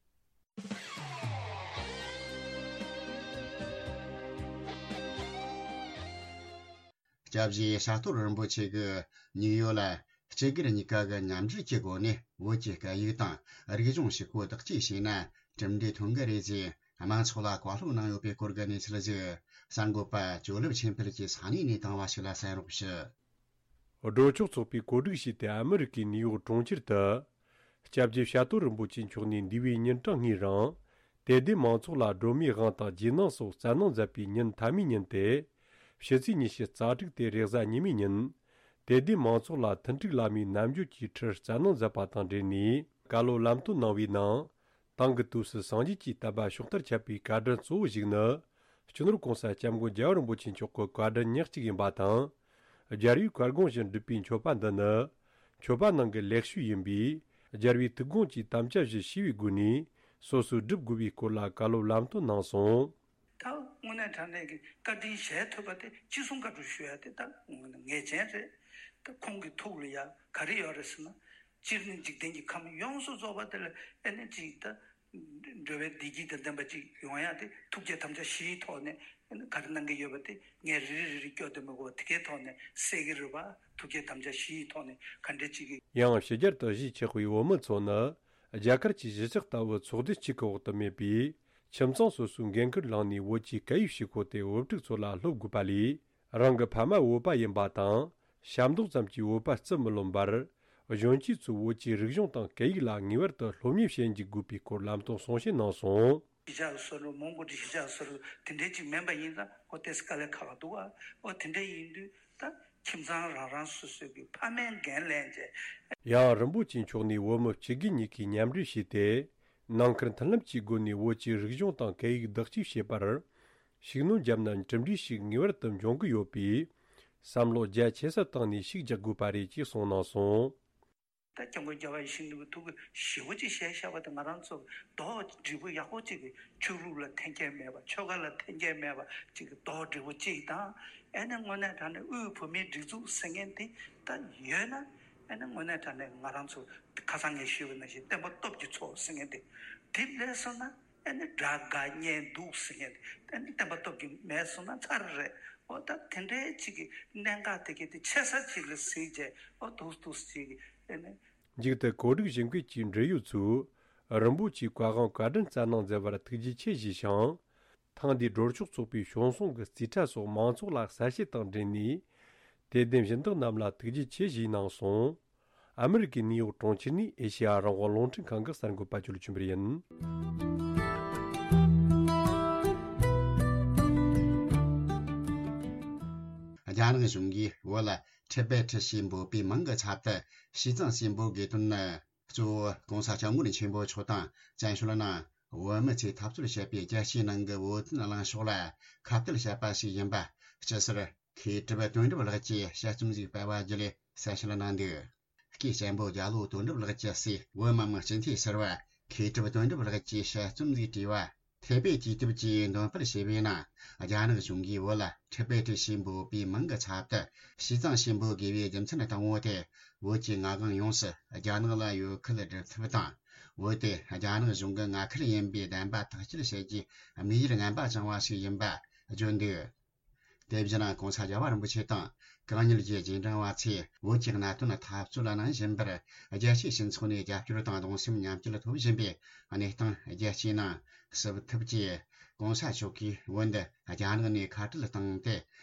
སྐྱབས་རྗེ་བྱ་དོར་རིན་པོ་ཆེ་གིས་ནིའུ་ཡོག་ལ་སྤྱི་སྒེར་གཉིས་ཀ་གི་མཉམ་འབྲེལ་གྱི་སྒོ་ནས་བོད་ཀྱི་སྐད་ཡིག་དང་རིག་གཞུང་ཞིག་གོ་བདག་གཅེས་བྱས་ན་གྲུབ་འབྲས་ཐོན་གི་རེད་ཅེས་དམངས་ཚོགས་ལ་བཀའ་སློབ་གནང་ཡོད་པའི་སྐོར་གྱི་གནས་ཚུལ་ཞིག་གསར་འགོད་པ་ཇོ་ལེབ་ཆོས་འཕེལ་གྱིས་ས་གནས་ནས་བཏང་བ་ཞིག་ལ་གསན་རོགས་ཞུ། སྒྲོལ་ཆོག་ཚོགས་པས་གོ་སྒྲིག་བྱས་ཏེ་ཨ་མི་རི་ཀའི་ནིའུ་ཡོག་གྲོང་ཁྱེར་དུ། སྐྱབས་རྗེ་བྱ་དོར་རིན་པོ་ཆེ་མཆོག་ནས་འདས་པའི་ཉིན་གྲངས་ལྔའི་རིང་། དད་ལྡན་མང་ཚོགས་ལ་སྒྲོལ་མའི་དབང་དང་རྗེས་གནང་སོགས་སྩལ་གནང་མཛད་པའི་ཉིན་མཐའ་མའི་ཉིན་ཏེ། ཕྱི་ཚེས་ཉི་ཤུ་རྩ་དྲུག་སྟེ་རེས་གཟའ་ཉི་མའི་ཉིན། དད་ལྡན་མང་ཚོགས་ལ་མཐུན་འགྲིག་བླ་མའི་རྣལ་འབྱོར་གྱི་ཁྲིད་སྩལ་གནང་མཛད་པ་དང་འབྲེལ་ནས། བཀའ་སློབ་ལམ་སྟོན་གནང་བའི་ནང་། དེང་གི་དུས་སུ་སངས་རྒྱས་ཀྱི་བསྟན་པ་ཕྱོགས་མཐར་ཁྱབ་པའི་བཀའ་དྲིན་གཙོ་བོ་ཞིག་ནི། སྤྱི་ནོར་༸གོང་ས་༸སྐྱབས་མགོན་རྒྱལ་བ་རིན་པོ་ཆེ་མཆོག་གི་བཀའ་དྲིན་ཉག་གཅིག་ཡིན་པ་དང་། རྒྱལ་བའི་བཀའ་དགོངས་བཞིན་སྒྲུབ་པའི་མཆོད་པ་འདི་ནི། མཆོད་པ་ནང་གི་ལེགས་ཤོས་ཡིན་པས། རྒྱལ་བའི་ཐུགས་དགོངས་ཀྱི་དམ་བཅའ་བཞི་ཤེས་པའི་སྒོ་ནས། སོ་སོས་སྒྲུབ་དགོས་པའི་སྐོར་ལ་བཀའ་སློབ་ལམ་སྟོན་གནང་སོང་། ད་དངོས་གནས་དྲང་གནས་ཀྱི་བཀའ་དྲིན་གཞལ་ཐུབ་པ་དེ་ཅི་གསུང་བཀའ་སྒྲུབ་ཞུ་ཡ་དེ་ད་དངོས་གནས་ངེས་ཅན་རེད། ད་ཁོང་གི་ཐུགས་ལ་ཡ་ག་རེ་ཡོད་རེད་ཟེར་ན། སྤྱིར་ནི་འཇིག་རྟེན་གྱི་ཁམས་ཡོངས་སུ་རྫོགས་པ་དེ་ལ་ཨེ་ནི་ཅིག་ད་འགྲོ་བའི་བདེ་སྐྱིད་དང་ལྡན་པ་ཅིག་ཡོང་ཡ་དེ་ཐུགས་བསྐྱེད་དམ་བཅའ་བཞིའི་ཐོག་ནས་ཨེ་ནི་ག་རེ་གནང་གི་ཡོད་པ་དེ་ངས་རེ་རེ་རེ་རེ་སྐྱོར་དུ་མི་དགོས་པ་དེ་གའི་ཐོག་ནས་གསལ་གི་རེད་པ། ཐུགས་བསྐྱེད་དམ་བཅའ་བཞིའི་ཐོག་ནས་ག་འདྲ་ཅིག་གི། ཡང་ཕྱི་རྒྱལ་དུ་གཞིས་ཆགས་པའི་བོད་མི་ཚོ་ནི། རྒྱ་གར་གྱི་གཞིས་ཆགས་ལྟ་བུ་ཚོགས་སྡེ་གཅིག་གི་འོག་ཏུ་མེད་པས། ཁྱིམ་ཚང་སོ་སོའི་འགན་ཁུར་བླངས་ནས་བོད་ཀྱི་སྐད་ཡིག་ཤེས་ཁོ་དེ་བུ་ཕྲུག་ཚོ་ལ་སློབ་དགོས་པ་ལས། རང་གི་ཕ་མ་བོད་པ་ཡིན་པ་དང་། ཞབས་འདེགས་ཙམ་གྱིས་བོད་པ་བརྩི་མི་ལོན་པར། གཞོན་སྐྱེས་ཚོས་བོད་ཀྱི་རིག་གཞུང་དང་སྐད་ཡིག་ལ་ངེས་པར་དུ་སློབ་གཉེར་བྱེད་འཇུག་དགོས་པའི་སྐོར་ལམ་སྟོན་གསུང་བཤད་གནང་སོང་། གཞིས་ཆགས་སུ་སོ་སོ་མོན་གྷོ་གི་གཞིས་ཆགས་སུ་སོ་སོ་དེ་འདྲའི་ཅིག་མིན་པ་ཡིན་ཙང་ཨོ་དེ་དཀའ་ལས་ཁག་འདུག་ཨ། ཨོ་དེ་འདྲ་ཡིན་དུས་ད་ཁྱིམ་ཚང་རང་རང་སོ་སོའི་གི་ཕ་མའི་འགན་ལེན་བྱས། ཡང་རིན་པོ་ཆེ་མཆོག་ནས་བོད་མི་སྤྱི་སྒེར་གཉིས་ཀས་མཉམ་འབྲེལ་བྱས་ཏེ། ནང་ཁུལ་མཐུན་ལམ་གྱི་སྒོ་ནས་བོད་ཀྱི་རིག་གཞུང་དང་སྐད་ཡིག་བདག་གཅེས་བྱེད་པར། ཤུགས་སྣོན་བརྒྱབ་ན་གྲུབ་འབྲས་ཤིག་ངེས་པར་དུ་འབྱུང་གི་ཡོད་པས། བསམ་བློ་རྒྱ་ཆེ་ས་བཏང་ནས་ཤུགས་རྒྱག་དགོས་པ་རེད་ཅེས་གསུངས་གནང་སོང་། ད་སྐྱབས་མགོན་རྒྱལ་བ་ཡིད་བཞིན་ནོར་བུའི་ཐུགས་ཀྱི་ཞེ་པོ་ཅིག་བཞེས་བཞག་པ་དེ་ང་རང་ཚོ་རྡོག་སྒྲིལ་པོ་ཡག་པོ་ཅིག་གི་ཆོས་ལུགས་ལ་འཐེན་འཁྱེར་མེད་པ། ཆོལ་ཁ་ལ་འཐེན་འཁྱེར་མེད་པ་ཅིག་གི་རྡོག་སྒྲིལ་པོ་ཅིག་དང་། ཨེ་ནས་དངོས་གནས་དྲང་གནས་དབུས་བོད་མིའི་སྒྲིག་འཛུགས་ཟེར་མཁན་དེ་ད་ཡོད་ན། ཨེ་ནས་དངོས་གནས་དྲང་གནས་ང་རང་ཚོ་ཁ་སང་ངས་ཞུས་པ་ནང་བཞིན་བསྟན་པ་སྟོབས་ཀྱི་ཚོགས་ཟེར་མཁན་དེ་དེ་སླེབས་སོང་ན། ཨ་ནི་དགྲ་དགའ་གཉེན་སྡུག་ཟེར་མཁན་དེ་ཨ་ནི་བསྟན་པ་སྟོབས་ཀྱིས་མེད་སོང་ན་ཚར་རེད། འོ་ད་དེ་འདྲའི་ཅིག་གི་གནད་འགག་དེ་གའི་དེ་ཆེ་ས་ཅིག་ལ་གཟིགས་བྱས་འོ་ཐུགས་ཐུགས་ཅིག་ཨ་ནི། མཇུག་ཏུ་གོ་སྒྲིག་ཞིབ་འཁོད་ཀྱི་འབྲེལ་ཡོད་ཚོས་རིན་པོ་ཆེའི་བཀའ་དབང་བཀའ་དྲིན་སྩལ་གནང་མཛད་པར་ཐུགས་རྗེ་ཆེ་ཞུས་ཤིང་། ཐེངས་འདིའི་སྒྲོལ་ཆོག་ཚོགས་པའི་བྱུང་སོང་གི་རྩིས་ཁྲ་སོགས་མང་ཚོགས་ལ་གསལ་བཤད་དང་འབྲེལ་ནས། དད་ལྡན་སྦྱིན་བདག་རྣམས་ལ་ཐུགས་རྗེ་ཆེ་ཞུས་གནང་སོང་། ཨ་མི་རི་ཀའི་ནིའུ་ཡོག་གྲོང་ཁྱེར་ནས་ཨེ་ཤེ་ཡ་རང་དབང་རླུང་འཕྲིན་ཁང་གི་གསར་འགོད་པ་ཇོ་ལུ་ཆོས་འཕེལ་ཡིན། རྒྱ་ནག་གཞུང་གིས་བོད་ལ་ཊི་བེ་ཊི་ཞེས་འབོད་པའི་མིང་གི་ཚབ་ཏུ་ཞི་ཙང་ཞེས་འབོད་དགོས་དོན་ནི། གཙོ་བོ་༸གོང་ས་༸སྐྱབས་མགོན་ཆེན་པོ་མཆོག་དང་བཙན་བྱོལ་ནང་བོད་མི་ཚོས་འཐབ་རྩོད་བྱེད་པའི་རྒྱལ་སྤྱིའི་ནང་གི་བོད་དོན་གླེང་ཕྱོགས་ལ་ཁ་གཏད་བྱས་པ་ཞིག་ཡིན་པ། སྤྱི་ཟུར་མཁས་གྲུབ་དོན་གྲུབ་ལགས་ཀྱིས་དཔྱད་རྩོམ་ཞིག་སྤེལ་བ་བརྒྱུད་ལས་གསལ་བཤད་གནང་འདུག། སྐུའི་གཅེན་པོ་རྒྱ་ལོ་དོན་གྲུབ་ལགས་ཀྱི་སྲས་བོད་མི་མང་སྤྱི་འཐུས་ཟུར་པ་མཁས་གྲུབ་དོན་གྲུབ་ལགས་ཀྱིས་དཔྱད་རྩོམ་ཞིག་བྲིས་པ། ཐེ་པེ་དུས་དེབ་ཀྱིས་འདོན་སྤེལ་བྱས་པའི་ནང་། རྒྱ་ནག་གཞུང་གིས་བོད་ལ་ཊི་བེ་ཊི་ཞེས་འབོད་པའི་མིང་གི་ཚབ་ཏུ་ཞི་ཙང་ཞེས་འབོད་དགོས་པའི་རྒྱུ་མཚན་དང་པོ་དེ། བོད་ཀྱི་མངའ་དབང་ཡོངས་སུ་རྒྱ་ནག་ལ་ཡོད་ཁུལ་སྒྲུབ་ཐབས་དང་། བོད་དེ་རྒྱ་ནག་གཞུང་གི་མངའ་ཁུལ་ཡིན་པའི་བདེན་པ་ཐག་གཅོད་བྱེད་རྒྱུའི་དམིགས་ཡུལ་ངན་པ་བཅངས་པ་ཞིག་ཡིན་པ་བརྗོད་འདུག། དེ་བཞིན་༸གོང་ས་༸རྒྱལ་བ་རིན་པོ་ཆེ་དང་གང་ཉིད་ཀྱི་རྗེས་འབྲང་བ་ཚོས་བོད་ཀྱི་གནད་དོན་འཐབ་རྩོད་གནང་བཞིན་པར། རྒྱལ་སྤྱིའི་སྤྱི་ཚོགས་ནས་རྒྱབ་སྐྱོར་དང་གདུང་སེམས་མཉམ་སྐྱེད་ཐོབ་བཞིན་པའི་གནས་སྟངས་རྒྱལ་སྤྱིའི་ནང་སེལ་ཐབས་ཀྱིས། ༸གོང་ས་མཆོག་གིས་བོད་འདི་རྒྱ་ནག་ནས་ཁ་བྲལ་བཏང་སྟེ།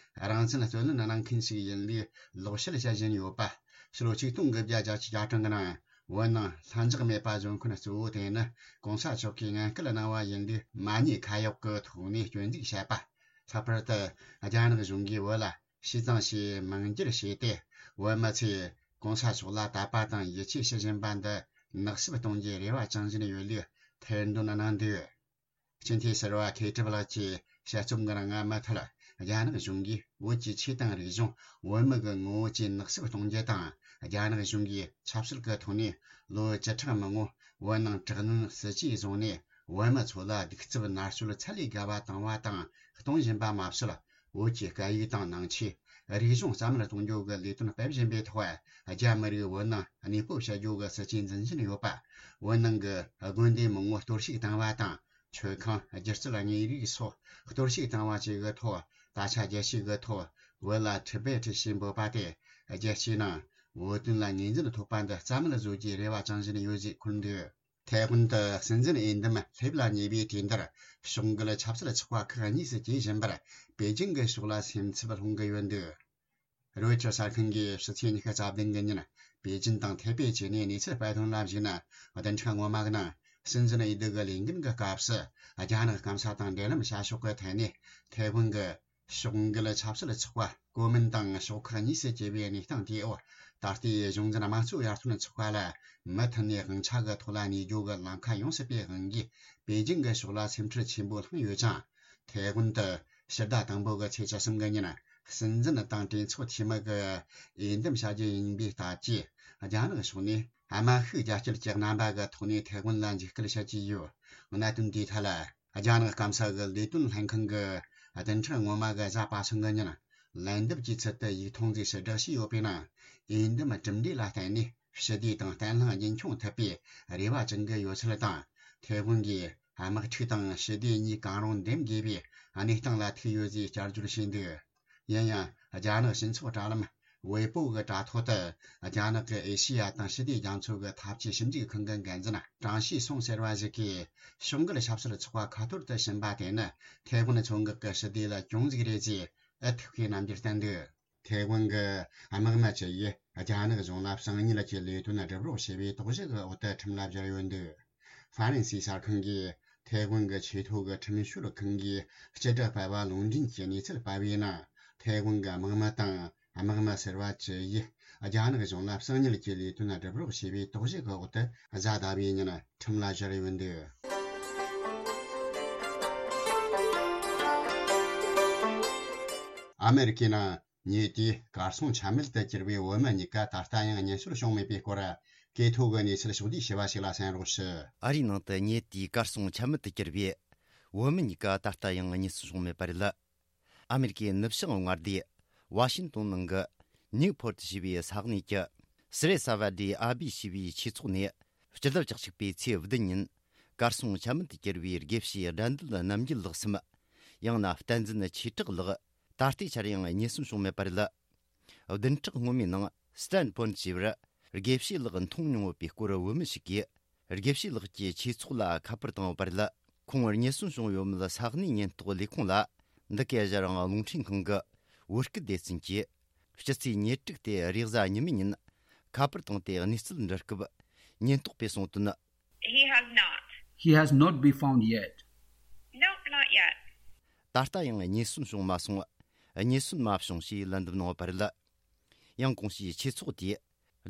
རང་བཙན་རྩོད་ལེན་གནང་མཁན་ཞིག་ཡིན་ལུགས་ལོག་བཤད་བྱ་བཞིན་ཡོད་པ། ཕྱི་ལོ་ཆིག་སྟོང་དགུ་བརྒྱ་བརྒྱད་ཅུ་གྱ་གྲངས་ཀྱི་ནང་བོད་ནང་ལྷིང་འཇགས་མེད་པ་བཟོ་མཁན་གཙོ་བོ་དེ་ནི་༸གོང་ས་མཆོག་གིས་ངན་སྐུལ་གནང་བ་ཡིན་ལུགས་མ་ཉེས་ཁ་གཡོག་གི་ཐོག་ནས་སྐྱོན་འཛུགས་བྱས་པ། ལྷག་པར་དུ་རྒྱ་ནག་གཞུང་གིས་བོད་ལ་ཞི་ཙང་ཞེས་མིང་བསྒྱུར་བྱས་ཏེ། བོད་མི་ཚོས་༸གོང་ས་མཆོག་ལ་དད་པ་དང་ཡིད་ཆེས་བྱེད་བཞིན་པ་འདི་ནག་བསུབ་གཏོང་རྒྱུའི་རེ་བ་བཅངས་བཞིན་ཡོད་ལུགས་ཐེར་འདོན་གནང་འདུག། སྤྱི་འཐུས་ཟུར་པ་མཁས་གྲུབ་ལགས་ཀྱིས་དཔྱད་རྩོམ་འགའ་རང་མུ་མཐུད། རྒྱ་ནག་གཞུང་གིས་བོད་ཀྱི་ཆོས་དང་རིག་གཞུང་། བོད་མི་གི་ངོ་བོ་བཅས་ནག་བསུབ་གཏོང་རྒྱུ་དང་། རྒྱ་ནག་གཞུང་གིས་ཆབ་སྲིད་ཀྱི་ཐོག་ནས་ལོ་བཅུ་ཕྲག་མང་པོ་བོད་ནང་དྲག་གནོན་སྲིད་ཇུས་བཟུང་ནས། བོད་མི་ཚོ་ལ་གདུག་རྩུབ་མནར་གཅོད་ཚད་ལས་བརྒལ་བ་བཏང་བ་དང་གཏོང་བཞིན་པ་མ་ཟད། བོད་ཀྱི་སྐད་ཡིག་དང་ནང་ཆོས། རིག་གཞུང་རྩ་མེད་གཏོང་རྒྱུ་གི་ལས་དོན་སྤེལ་བཞིན་པའི་ཐོག་རྒྱ་མི་རིགས་བོད་ནང་གནས་སྤོ་བྱ་རྒྱུ་གི་སྲིད་ཇུས་འཛིན་བཞིན་ཡོད་པ། བོད་ནང་གི་དགོན་སྡེ་མང་པོ་གཏོར་བཤིག་བཏང་བ་དང་། མཆོད་ཁང་། སྒྱུ་རྩལ་དངོས་རིགས་སོགས་གཏོར་བཤིག་བཏང་བ་བཅས་ཀྱི་ཐོག་ད་ཆ་རྒྱལ་སྤྱི་གི་ཐོག་བོད་ལ་ཊི་བེ་ཊི་ཞེས་འབོད་པ་དེ། རྒྱལ་སྤྱིའི་ནང་བོད་དོན་ལ་ངོས་འཛིན་ཐོབ་པ་འདི་རྩ་མེད་བཟོ་རྒྱུའི་རེ་བ་བཅངས་བཞིན་ཡོད་ཅེས་འཁོད་འདུག། ཐའེ་ཝན་དུ་སྲིད་འཛིན་འོས་འདེམས་སླེབས་ལ་ཉེ་བའི་དུས་འདིར། ཕྱོགས་འགལ་ཆབ་སྲིད་ཚོགས་པ་ཁག་གཉིས་སུ་གྱེས་བཞིན་པར། པེ་ཅིང་གི་ཕྱོགས་ལ་སེམས་འཚབ་སློང་གི་ཡོད་འདུག། རོའི་ཊར་གསར་ཁང་གིས་ཕྱི་ཚེས་ཉི་ཤུ་རྩ་བདུན་གྱི་ཉིན་པེ་ཅིང་དང་ཐའེ་པེ་བཅས་ནས་གནས་ཚུལ་སྤེལ་དོན་ལ་གཞིགས་ན། བདུན་ཕྲག་སྔོན་མ་གི་ནང་སྲིད་འཛིན་འོས་བསྡུ་གི་ལས་འགུལ་གྱི་སྐབས་སུ། རྒྱ་ནག་སྐམ་ས་དང་འབྲེལ་ལམ་བྱ་ཕྱོགས་ཀྱི་ཐད་ནས་ཐའེ་ཝན་གྱི་ཕྱོགས་འགལ་ཆབ་སྲིད་ཚོགས་པ་གོ་མིན་ཏང་ཕྱོགས་ཁག་གཉིས་སུ་གྱེས་པའི་གནས་སྟངས་དེའི་འོག་ད་ལྟའི་གཞུང་འཛིན་དམངས་གཙོའི་ཡར་ཐོན་ཚོགས་པ་ལ་མུ་མཐུད་ནས་དབང་ཆ་གི་ཐོག་ལ་གནས་རྒྱུ་གི་ལམ་ཁ་ཡོང་སྲིད་པའི་དབང་གིས། པེ་ཅིང་གི་ཕྱོགས་ལ་སེམས་ཁྲལ་ཆེན་པོ་བསླངས་ཡོད་ཅིང་། ཐའེ་ཝན་དུ་ཕྱི་ཟླ་དང་པོ་གི་ཚེས་བཅུ་གསུམ་གི་ཉིན། སྲིད་འཛིན་དང་གྲོས་ཚོགས་འཐུས་མི་གི་འོས་འདེམས་བྱ་རྒྱུ་ཡིན་པའི་སྟབས་ཀྱིས། རྒྱ་ནག་ཕྱོགས་ནས་དམག་ཤུགས་རྒྱ་སྐྱེད་ཀྱི་རྣམ་པ་གི་ཐོག་ནས་ཐའེ་ཝན་ལ་འཇིགས་སྐུལ་བྱེད་ཀྱི་ཡོད། གནད་དོན་དེའི་ཐད་ལ། རྒྱ་ནག་སྐམ་ས་གི་ལས་དོན་ལྷན་ཁང་གི་བདུན་ཕྲག་སྔོན་མ་གི་གཟའ་པ་སངས་གི་ཉིན། ལན་འདེབས་ཀྱི་ཚུལ་དུ་ཡིག་ཐུང་ཞིག་ཕྱིར་བསྒྲགས་བྱས་ཡོད་པའི་ནང་། འོས་འདེམས་གྲུབ་འབྲས་ལ་བརྟེན་ནས་ཞི་བདེ་དང་བརྟན་ལྷིང་རྒྱུན་འཁྱོངས་ཐུབ་པའི་རེ་བ་བཅང་གི་ཡོད་ཚུལ་དང་། ཐའེ་ཝན་གྱིས་དམག་འཁྲུག་དང་ཞི་བདེ་གཉིས་གང་རུང་འདེམས་དགོས་པའི་གནས་སྟངས་ལ་ཐུག་ཡོད་ཅེས་བསྐྱར་བརྗོད་བྱས་འདུག། ཡིན་ཡང་། རྒྱ་ནག་སྤྱི་ཚོགས་དྲ་ལམ་ཝེ་པོ་གི་དྲ་ཐོག་ཏུ། རྒྱ་ནག་གི་ཨེ་ཤེ་ཡ་དང་ཞི་བདེ་རྒྱ་མཚོ་གི་འཐབ་ཇུས་ཞིབ་འཇུག་ཁང་གི་འགན་འཛིན་ཀྲང་ཤིས་སུང་ཟེར་བ་ཞིག་གིས། ཕྱོགས་འགལ་ཆབ་སྲིད་ཚོགས་པ་ཁ་ཐོར་དུ་ཕྱིན་པ་དེ་ནི་ཐའེ་ཝན་མཚོ་འགག་གི་ཞི་བདེ་ལ་གྱོང་ཟིག་རེད་ཅེས་ཨུ་ཐུག་གིས་རྣམ་འགྱུར་བསྟན་འདུག། ཐའེ་ཝན་གྱི་དམག་མི་བཅུ་ཡིས་རྒྱ་ནག་གཞུང་ལ་གསང་ཉུལ་གྱི་ལས་དོན་སྒྲུབ་རོགས་བྱས་པའི་དོགས་གཞི་གི་འོག་ཏུ་ཁྲིམས་ལ་སྦྱར་ཡོད་འདུག། ཧྥ་རན་སིའི་གསར་ཁང་གིས་ཐའེ་ཝན་གྱི་ཆེས་མཐོ་གི་ཁྲིམས་ཞིབ་ཁང་གིས་སྤྱི་བསྒྲགས་སྤེལ་བ་ལུང་འདྲེན་གྱི་གནས་ཚུལ་སྤེལ་བའི་ནང་། ཐའེ་ཝན་གྱི་དམག་མི་དང་དམག་མི་ཟུར་པ་བཅུ་ཡིས་རྒྱ་ནག་གཞུང་ལ་གསང་ཉུལ་གྱི་ལས་དོན་སྒྲུབ་རོགས་བྱས་པའི་དོགས་གཞི་གི་འོག་ཏུ་གཟའ་ཟླ་བའི་ཉིན་ཁྲིམས་ལ་སྦྱར་ཡོད་འདུག། ཨ་མེ་རི་ཀའི་ནང་། ཉེ་དུས་གར་སོང་ཆ་མེད་དུ་གྱུར་བའི་བོད་མི་གཉིས་ཀ་ད་ལྟ་ཡང་རྙེད་སོན་བྱུང་མེད་པའི་སྐོར། གོ་ཐོས་ཀྱི་གནས་ཚུལ་ཕྱོགས་བསྡུས་བྱས་པ་ཞིག་ལ་གསན་རོགས་ཞུ། ཨ་རིའི་ནང་དུ་ཉེ་དུས་གར་སོང་ཆ་མེད་དུ་གྱུར་བའི་བོད་མི་གཉིས་ཀ་ད་ལྟ་ཡང་རྙེད་སོན་བྱུང་མེད་པ་རེད། ཨ་མེ་རི་ཀའི་ནུབ་བྱང་མངའ་སྡེ་ཝ་ཤིན་ཏོན་ནང་གི་ནིའུ་ཕོར་ཊི་ཞེས་པའི་ས་གནས་ཀྱི་སི་རེ་ས་བ་ཌི་ཨ་བི་ཞེས་པའི་ཆོས་ཚོགས་ནས། སྤྱི་ཟླ་བཅུ་གཅིག་པའི་ཚེས་བདུན་ཉིན། གར་སོང་ཆ་མེད་དུ་གྱུར་བའི་དགེ་བཤེས་དགྲ་འདུལ་རྣམ་རྒྱལ་ལགས་སམ། ཡང་ན་བསྟན་འཛིན་ཆོས་གྲགས་ལགས། ད་ལྟའི་ཆར་ཡང་རྙེད་སོན་བྱུང་མེད་པ་རེད། བདུན་ཕྲག་སྔོན་མའི་ནང་སི་ཏན་ཕོན་ཞེས་པར་དགེ་བཤེས་ལགས་མཐོང་མྱོང་ཡོད་པའི་སྐོར་བོད་མི་ཞིག་གིས་དགེ་བཤེས་ལགས་ཀྱི་ཆོས་ཚོགས་ལ་ཁ་པར་བཏང་ཡོད་པ་རེད། ཁོང་རྙེད་སོན་བྱུང་ཡོད་མེད་ས་གནས་ཉེན་རྟོག་ལས་ཁུངས་ལ་འདི་གའི་ཞལ་རང་རླུང་འཕྲིན་ཁང་གི་བོད་སྐད་སྡེ་ཚན་གྱིས། ཕྱི་ཚེས་ཉེར་དྲུག་སྟེ་རེས་གཟའ་ཉི་མའི་ཉིན་ཁ་པར་བཏང་སྟེ་གནས་ཚུལ་འདྲི་སྐབས། ཉེན་རྟོག་པས་གསུངས་དོན། He has not. He has not been found yet. Nope, not yet. ད་ལྟ་ཡང་རྙེད་སོན་བྱུང་མ་སོང་། རྙེད་སོན་མ་བྱུང་ཞེས་ལན་འདེབས་གནང་ཡོད་པ་རེད། ཡང་གོང་ཞུས་ཆོས་ཚོགས་དེས།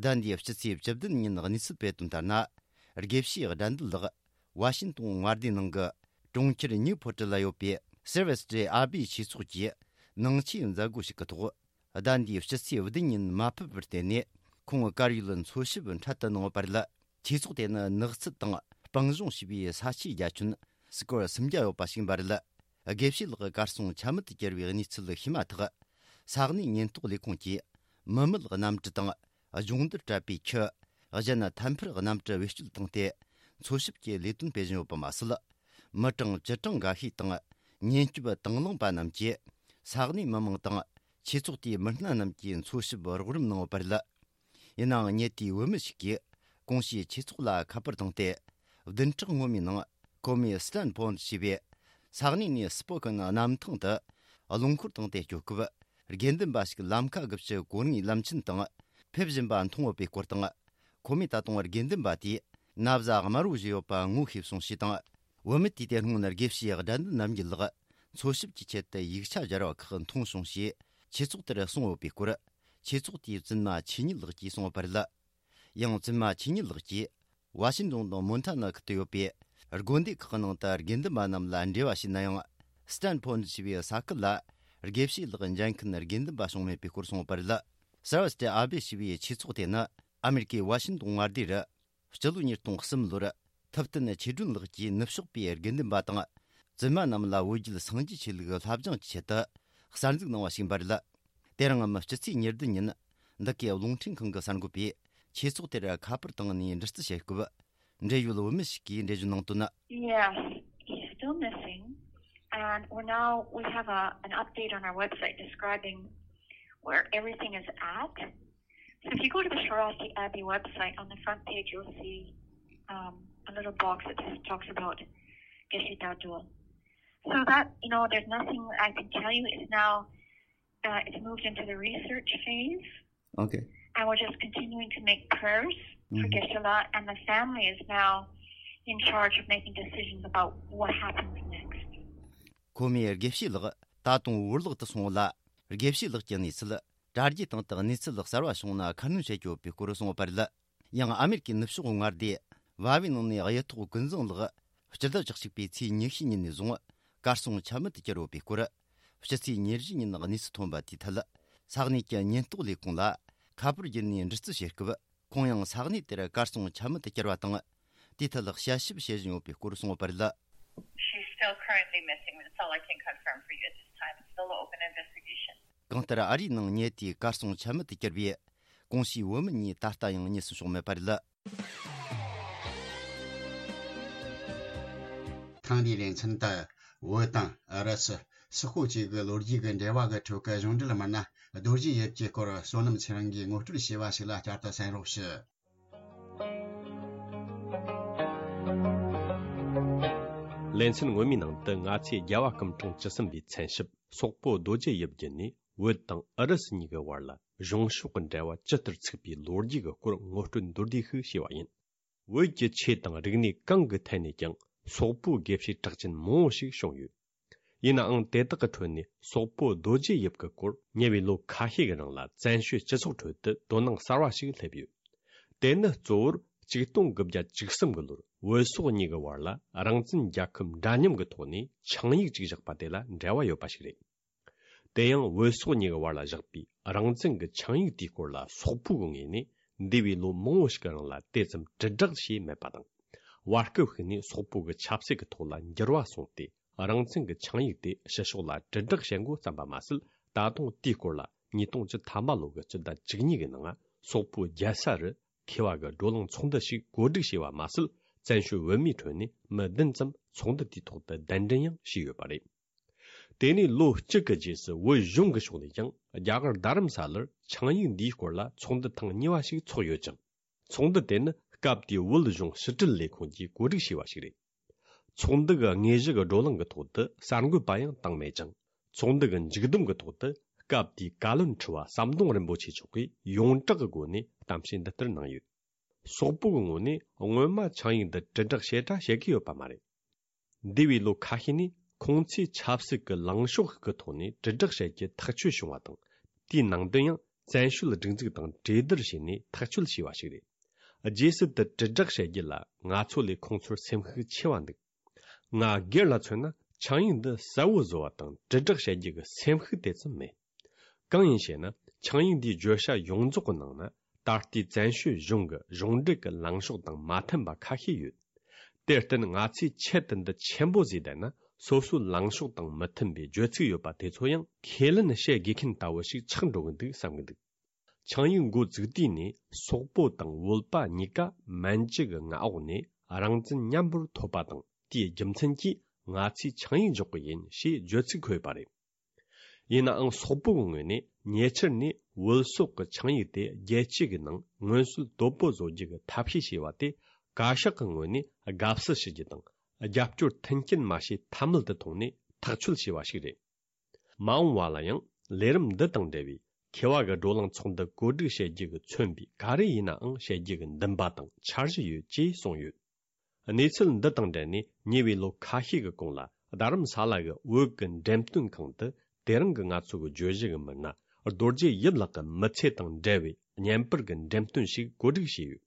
ཟླ་འདིའི་ཕྱི་ཚེས་བཅུ་བདུན་ཉིན་གནས་ཚུལ་སྤེལ་དོན་ལྟར་ན། དགེ་བཤེས་དགྲ་འདུལ་ལགས་ཝ་ཤིན་ཏོན་མངའ་སྡེའི་ནང་གི་གྲོང་ཁྱེར་ནིའུ་ཕོར་ཊི་ལ་ཡོད་པའི་སེར་ཝེ་སི་ཏྲེ་ཨ་བི་ཆོས་ཚོགས་ཀྱིས་ནང་ཆོས་མཛད་སྒོ་ཞིག་གི་ཐོག་ཟླ་འདིའི་ཕྱི་ཚེས་བདུན་ཉིན་མ་ཕེབས་པར་བརྟེན་ནས། ཁོང་གི་དཀར་ཡོལ་འཚོལ་ཞིབ་འཕྲལ་དུ་གནང་ཡོད་པ་རེད། ཆོས་ཚོགས་དེ་ནི་ནགས་ཚལ་དང་སྤང་ལྗོངས་ཞེས་པའི་ས་ཆའི་རྒྱ་ཁྱོན་སི་ཀོར་སུམ་བརྒྱ་ཡོད་པ་ཞིག་ཡིན་པ་རེད། དགེ་བཤེས་ལགས་གར་སོང་ཆ་མེད་དུ་གྱུར་བའི་གནས་ཚུལ་ཤེས་མ་ཐག་ས་གནས་ཉེན་རྟོག་ལས་ཁུངས་ཀྱིས་མི་མེད་གནམ་གྲུ་དང་སྦྱོང་བརྡར་སྤྲད་པའི་ཁྱུ། གཞན་ཐད་འཕུར་གནམ་གྲུ་བེད་སྤྱོད་བཏང་སྟེ། འཚོལ་ཞིབ་ཀྱི་ལས་དོན་སྤེལ་བཞིན་ཡོད་པ་མ་ཟད། མི་གྲངས་བཅུ་གྲངས་འགའ་ཤས་དང་། ཉེན་སྐྱོབ་དང་བླངས་པ་རྣམས་ཀྱིས། ས་གནས་མི་མང་དང་། ཆོས་ཚོགས་དེའི་མི་སྣ་རྣམས་ཀྱིས་འཚོལ་ཞིབ་རོགས་རམ་གནང་ཡོད་པ་རེད། ཡིན་ནའང་། ཉེ་དུས་བོད་མི་ཞིག་གིས་གོང་ཞུས་ཆོས་ཚོགས་ལ་ཁ་པར་བཏང་སྟེ། བདུན་ཕྲག་སྔོན་མའི་ནང་། ཁོ་མོས་སི་ཏན་ཕོན་ཞེས་པའི་ས་གནས་ནས་སི་པོ་ཀན་གནམ་ཐང་དུ་རླངས་འཁོར་བཏང་སྟེ་སྐྱོད་སྐབས། དགེ་འདུན་པ་ཞིག་ལམ་ཁ་དགུ་བཅུ་གོ་ལྔའི་ལམ་ཆེན་དང་ཕེབས་བཞིན་པ་མཐོང་ཡོད་པའི་སྐོར་དང་། ཁོ་མོས་ད་དུང་དགེ་འདུན་པ་དེས་ན་བཟའ་དམར་བོ་བཞེས་ཡོད་པ་ངོ་ཤེས་སོང་ཞེས་དང་། བུད་མེད་དེས་དེ་སྔོན་དགེ་བཤེས་དགྲ་འདུལ་རྣམ་རྒྱལ་ལགས་འཚོལ་ཞིབ་ཀྱི་ཆེད་དུ་ཡིག་ཆ་སྦྱར་བ་ཁག་མཐོང་བྱུང་ཞེས་ཆོས་ཚོགས་དེར་གསུངས་ཡོད་པའི་སྐོར། ཆོས་ཚོགས་དེའི་བཙུན་མ་ཆོས་ཉིད་ལགས་ཀྱིས་གསུངས་ཡོད་པ་རེད། ཡང་བཙུན་མ་ཆོས་ཉིད་ལགས་ཀྱིས་ཝ་ཤིན་ཏོན་དང་མོན་ཐ་ན་ཁུལ་དུ་ཡོད་པའི་དགོན་སྡེ་ཁག་ནང་དུ་དགེ་འདུན་པ་རྣམས་ལ་འབྲེལ་བ་བྱས་ན་ཡང་། སི་ཏན་ཕོན་ཞེས་པའི་ས་ཁུལ་ལ་དགེ་བཤེས་ལགས་མཇལ་མཁན་དགེ་འདུན་པ་བྱུང་མེད་པའི་སྐོར་གསུངས་ཡོད་པ་རེད། སར་བ་སི་ཏྲེ་ཨ་བེ་ཞེས་པའི་ཆོས་ཚོགས་དེ་ནི་ཨ་མེ་རི་ཀའི་ཝ་ཤིན་ཏོན་མངའ་སྡེ་རུ། སྤྱི་ལོ་ཉིས་སྟོང་གསུམ་ལོར་ཐུབ་བསྟན་ཆོས་སྒྲོན་ལགས་ཀྱིས་ནུབ་ཕྱོགས་པའི་དགེ་འདུན་པ་དང་བཙུན་མ་རྣམས་ལ་བོད་བརྒྱུད་སངས་རྒྱས་ཆོས་ལུགས་བསླབ་སྦྱོང་གི་ཆེད་དུ་གསར་འཛུགས་གནང་བ་ཞིག་ཡིན་པ་རེད། དེ་རིང་ངམ་སྤྱི་ཚེས་ཉེར་བདུན་ཉིན་འདི་གའི་རླུང་འཕྲིན་ཁང་གི་གསར་འགོད་པས་ཆོས་ཚོགས་དེར་ཁ་པར་བཏང་ནས་འདྲི་རྩད་བྱེད་སྐབས། འབྲེལ་ཡོད་བུད་མེད་ཞིག་གིས་འགྲེལ་བརྗོད་གནང་དོན། Yes, he's still missing. And we're now, we have a, an update on our website describing where everything is at. So if you go to the Swarovski Abbey website, on the front page, you'll see um, a little box that just talks about Geshe Dadul. So that, you know, there's nothing I can tell you. It's now, uh, it's moved into the research phase. Okay. And we're just continuing to make prayers for Mhm. Geshe-la, and the family is now in charge of making decisions about what happens next. ཁོ་མོས་དགེ་བཤེས་ལགས་ད་དུང་བོར་བརླག་ཏུ་སོང་ལ། དགེ་བཤེས་ལགས་ཀྱི་གནས་ཚུལ་ དྲ་རྒྱའི་སྟེང་དུ་གནས་ཚུལ་གསར་བ་བྱུང་ན་ཁ་སྣོན་བྱེད་རྒྱུ་ཡོད་པའི་སྐོར་གསུངས་པ་རེད། ཡང་ཨ་མེ་རི་ཀའི་ནུབ་ཕྱོགས་མངའ་སྡེ་བ་བའི་ནང་ནས་གཡུ་ཐོག་ཀུན་བཟང་ལགས་སྤྱི་ཟླ་བཅུ་གཅིག་པའི་ཚེས་ཉི་ཤུའི་ཉིན་ནས་བཟུང་གར་སོང་ཆ་མེད་དུ་གྱུར་ཡོད་པའི་སྐོར། ཕྱི་ཚེས་ཉེར་བཞི་ཉིན་གནས་ཚུལ་ཐོན་པ་དེའི་ཐད། ས་གནས་ཀྱི་ཉེན་རྟོག་ལས་ཁུངས་ལ་ཁ་པར་བརྒྱུད་ནས་འདྲི་རྩད་བྱེད་སྐབས། ཁོང་ཡང་ས་གནས་དེར་གར་སོང་ཆ་མེད་དུ་གྱུར་བ་དང་། དེའི་ཐད་དཔྱད་ཞིབ་བྱེད་བཞིན་ཡོད་པའི་སྐོར་གསུངས་པ་རེད། She's still currently missing. That's all I can confirm for you at this time. It's still an open investigation. གང་ལྟར་ཨ་རིའི་ནང་ཉེ་དུས་གར་སོང་ཆ་མེད་དུ་གྱུར་བའི་གོང་ཞུས་བོད་མི་གཉིས་ད་ལྟ་ཡང་རྙེད་སོན་བྱུང་མེད་པ་རེད། ཐེངས་འདིའི་ལེ་ཚན་དུ་བོད་དང་ཨུ་རུ་སུ། སོག་པོ་བཅས་ཀྱི་ལོ་རྒྱུས་ཀྱི་འབྲེལ་བ་གི་ཁྲོད་ཀྱི་གཞུང་འབྲེལ་མི་སྣ་རྡོ་རྗེ་ཡིབ་ཀྱི་སྐོར་བསོད་ནམས་ཚེ་རིང་གིས་ངོ་སྤྲོད་བྱས་པ་ཞིག་ལ་བསྐྱར་དུ་གསན་རོགས་ཞུ། ལེ་ཚན་སྔོན་མའི་ནང་དུ་ང་ཚོས་རྒྱལ་བ་སྐུ་ཕྲེང་བཅུ་གསུམ་པའི་མཚན་ཞབས་སོག་པོ་རྡོ་རྗེ་ཡིབ་བརྒྱུད་ནས་བོད་དང་ཨུ་རུ་སུ་གཉིས་ཀྱི་བར་ལ་གཞུང་ཕྱོགས་ཀྱི་འབྲེལ་བ་ཇི་ལྟར་ཚུགས་པའི་ལོ་རྒྱུས་ཀྱི་སྐོར་ངོ་སྤྲོད་མདོར་བསྡུས་ཤིག་བྱས་པ་ཡིན། བོད་ཀྱི་ཆོས་དང་རིག་གནས་གང་གི་ཐད་ནས་ཀྱང་སོག་པོའི་དགེ་བཤེས་གྲགས་ཅན་མང་བོ་ཞིག་བྱུང་ཡོད། ཡིན་ནའང་དེ་དག་གི་ཁྲོད་ནས་སོག་པོ་རྡོ་རྗེ་ཡིབ་ཀྱི་སྐོར་ཉེ་བའི་ལོ་ཁ་ཤས་ཀྱི་རིང་ལ་བཙན་བྱོལ་སྤྱི་ཚོགས་ཁྲོད་དུ་དོ་སྣང་གསར་བ་ཞིག་སླེབས་ཡོད། དེ་ནི་གཙོ་བོར་ཆིག་སྟོང་དགུ་བརྒྱ་བཅུ་གསུམ་གྱི་ལོར་བོད་སོག་གཉིས་ཀྱི་བར་ལ་རང་བཙན་རྒྱལ་ཁབ་འདྲ་མཉམ་གྱི་ཐོག་ནས་ཆིངས་ཡིག་ཅིག་བཞག་པ་དེ་ལ་འབྲེལ་བ་ཡོད་པ་ཞིག་རེད། དེ་ཡང་བོད་སོག་གཉིས་ཀྱི་བར་ལ་བཞག་པའི་རང་བཙན་གྱི་ཆིངས་ཡིག་དེའི་སྐོར་ལ་སོག་པོའི་ངོས་ནས་འདས་པའི་ལོ་མང་བོ་ཞིག་གི་རིང་ལ་དེ་ཙམ་དྲིལ་བསྒྲགས་བྱས་མེད་པ་དང་། བར་སྐབས་ཤིག་ནས་སོག་པོ་གི་ཆབ་སྲིད་ཀྱི་ཐོག་ལ་འགྱུར་བ་སོང་སྟེ། རང་བཙན་གྱི་ཆིངས་ཡིག་དེ་ཕྱི་ཕྱོགས་ལ་དྲིལ་བསྒྲགས་བྱེད་འགོ་བརྩམས་པ་མ་ཟད། ད་དུང་དེའི་སྐོར་ལ་ཉིས་སྟོང་བཅུ་ཐམ་པ་ལོ་གི་སྤྱི་ཟླ་བཅུ་གཉིས་ཀྱི་ནང་སོག་པོའི་རྒྱལ་ས་རུ་མཁས་པ་གི་བགྲོ་གླེང་ཚོགས་འདུ་ཞིག་གོ་སྒྲིག་བྱས་པ་མ་ཟད། བཙན་བྱོལ་བོད་མིའི་ཁྲོད་ནས་མི་བདུན་ཙམ་ཚོགས་འདུ་དེའི་ཐོག་ཏུ་གདན་འདྲེན་ཡང་བྱས་ཡོད་པ་རེད། དེ་ནས་ལོ་གཅིག་གི་རྗེས་སུ་བོད་གཞུང་གི་ཕྱོགས་ནས་ཀྱང་རྒྱ་གར་རྡ་རམ་ས་ལར་ཆིངས་ཡིག་འདིའི་སྐོར་ལ་ཚོགས་འདུ་ཐེངས་གཉིས་པ་ཞིག་ཚོགས་ཡོད་ཅིང་། ཚོགས་འདུ་དེ་ནི་སྐབས་དེའི་བོད་གཞུང་ཕྱི་དྲིལ་ལས་ཁུངས་ཀྱིས་གོ་སྒྲིག་བྱས་པ་ཞིག་རེད། ཚོགས་འདུ་གི་དངོས་གཞི་གི་བགྲོ་གླེང་གི་ཐོག་ཏུ་གསར་འགོད་པ་ཡང་བཏང་མེད་ཅིང་། ཚོགས་འདུ་གི་མཇུག་བསྡོམས་ཀྱི་ཐོག་ཏུ་སྐབས་དེའི་བཀའ་བློན་ཁྲི་པ་ཟམ་གདོང་རིན་པོ་ཆེ་མཆོག་གིས་ཡོངས་གྲགས་ཀྱི་སྒོ་ནས་གཏམ་བཤད་འདི་ལྟར་གནང་ཡོད། སོག་པོ་གི་ངོས་ནས་སྔོན་མ་ཆིངས་ཡིག་འདི་དྲིལ་བསྒྲགས་ཞེ་དྲག་བྱེད་ཀྱི་ཡོད་པ་མ་རེད། འདས་པའི་ལོ་ཁ་ཤས་ནས་ཁོང་ཚོས་ཆབ་སྲིད་ཀྱི་ལངས་ཕྱོགས་ཤིག་གི་ཐོག་ནས་དྲིལ་བསྒྲགས་བྱེད་རྒྱུ་ཐག་ཆོད་བྱུང་བ་དང་། དེའི་ནང་དོན་ཡང་བཙན་བྱོལ་སྒྲིག་འཛུགས་དང་གྲོས་བསྡུར་བྱས་ནས་ཐག་གཅོད་བྱས་པ་ཞིག་རེད། རྗེས་སུ་དེ་དྲིལ་བསྒྲགས་བྱེད་རྒྱུ་ལ་ང་ཚོ་ལས་ཁོང་ཚོར་སེམས་ཤུགས་ཆེ་བ་འདུག། ང་སྒེར་ལ་མཚོན་ན་ཆིངས་ཡིག་འདི་གསལ་བོ་བཟོ་བ་དང་དྲིལ་བསྒྲགས་བྱེད་རྒྱུ་གི་སེམས་ཤུགས་དེ་ཙམ་མེད། གང་ཡིན་ཞེ་ན། ཆིངས་ཡིག་འདིའི་བརྗོད་བྱ་ཡོངས་རྫོགས་ཀྱི་ནང་ན། ད་ལྟའི་བཙན་བྱོལ་གཞུང་གི་གཞུང་འབྲེལ་གྱི་ལངས་ཕྱོགས་དང་མ་མཐུན་པ་ཁ་ཤས་ཡོད། དེར་བརྟེན་ང་ཚོས་ཆེད་དུ་འདི་ཆེན་པོ་བཟོས་བསྡད་ན། སོ་སོའི་ལངས་ཕྱོགས་དང་མི་མཐུན་པའི་བརྗོད་ཚིག་ཡོད་པ་དེ་ཚོ་ཡང་ཁས་ལེན་བྱེད་དགོས་མཁན་ལྟ་བུ་ཞིག་ཆགས་འགྲོ་གི་འདུག་བསམ་གི་འདུག། ཆིངས་ཡིག་འགོ་བཙུགས་དུས་ནས་སོག་པོ་དང་བོད་པ་གཉིས་ཀ་མན་ཇུ་གི་མངའ་འོག་ནས་རང་བཙན་མཉམ་པོར་ཐོབ་པ་དང་། དེའི་རྒྱུ་མཚན་གྱིས་ང་ཚོས་ཆིངས་ཡིག་འཇོག་གི་ཡིན་ཞེས་བརྗོད་ཚིག་འཁོད་ཡོད་པ་རེད། ཡིན་ནའང་སོག་པོ་གི་ངོས་ནས་ཉེ་ཆར་ནས་བོད་སོག་གི་ཆིངས་ཡིག་དེ་རྒྱལ་སྤྱི་གི་ནང་མངོན་གསལ་དོད་པོ་བཟོ་རྒྱུ་གི་ཐབས་ཤེས་བྱས་པ་དེ་བཀའ་ཤག་གི་ངོས་ནས་དགའ་བསུ་ཞུ་རྒྱུ་དང་། རྒྱབ་སྐྱོར་མཐུན་རྐྱེན་མ་བྱས་ཐབས་མེད་དུ་མཐོང་ནས་ཐག་གཅོད་བྱས་པ་ཞིག་རེད། མ་འོངས་པ་ལ་ཡང་ལས་རིམ་འདི་དང་འབྲེལ་བའི་མཁས་པ་གི་བགྲོ་གླེང་ཚོགས་འདུ་གོ་སྒྲིག་བྱེད་རྒྱུ་གི་མཚོན་པའི་ག་རེ་ཡིན་ནའང་བྱེད་རྒྱུ་གི་འདུན་པ་དང་འཆར་གཞི་ཡོད་ཅེས་གསུངས་ཡོད། གནས་ཚུལ་འདི་དང་འབྲེལ་ནས་ཉེ་བའི་ལོ་ཁ་ཤས་ཀྱི་གོང་ལ་རྡ་རམ་ས་ལ་གི་བོད་ཀྱི་འགྲེམས་སྟོན་ཁང་དུ་དེ་རིང་གི་ང་ཚོ་གི་བརྗོད་གཞི་གི་མི་སྣ་རྡོ་རྗེ་ཡིབ་ལགས་ཀྱི་མི་ཚེ་དང་འབྲེལ་བའི་བརྙན་པར་གྱི་འགྲེམས་སྟོན་ཞིག་གོ་སྒྲིག་བྱས་ཡོད།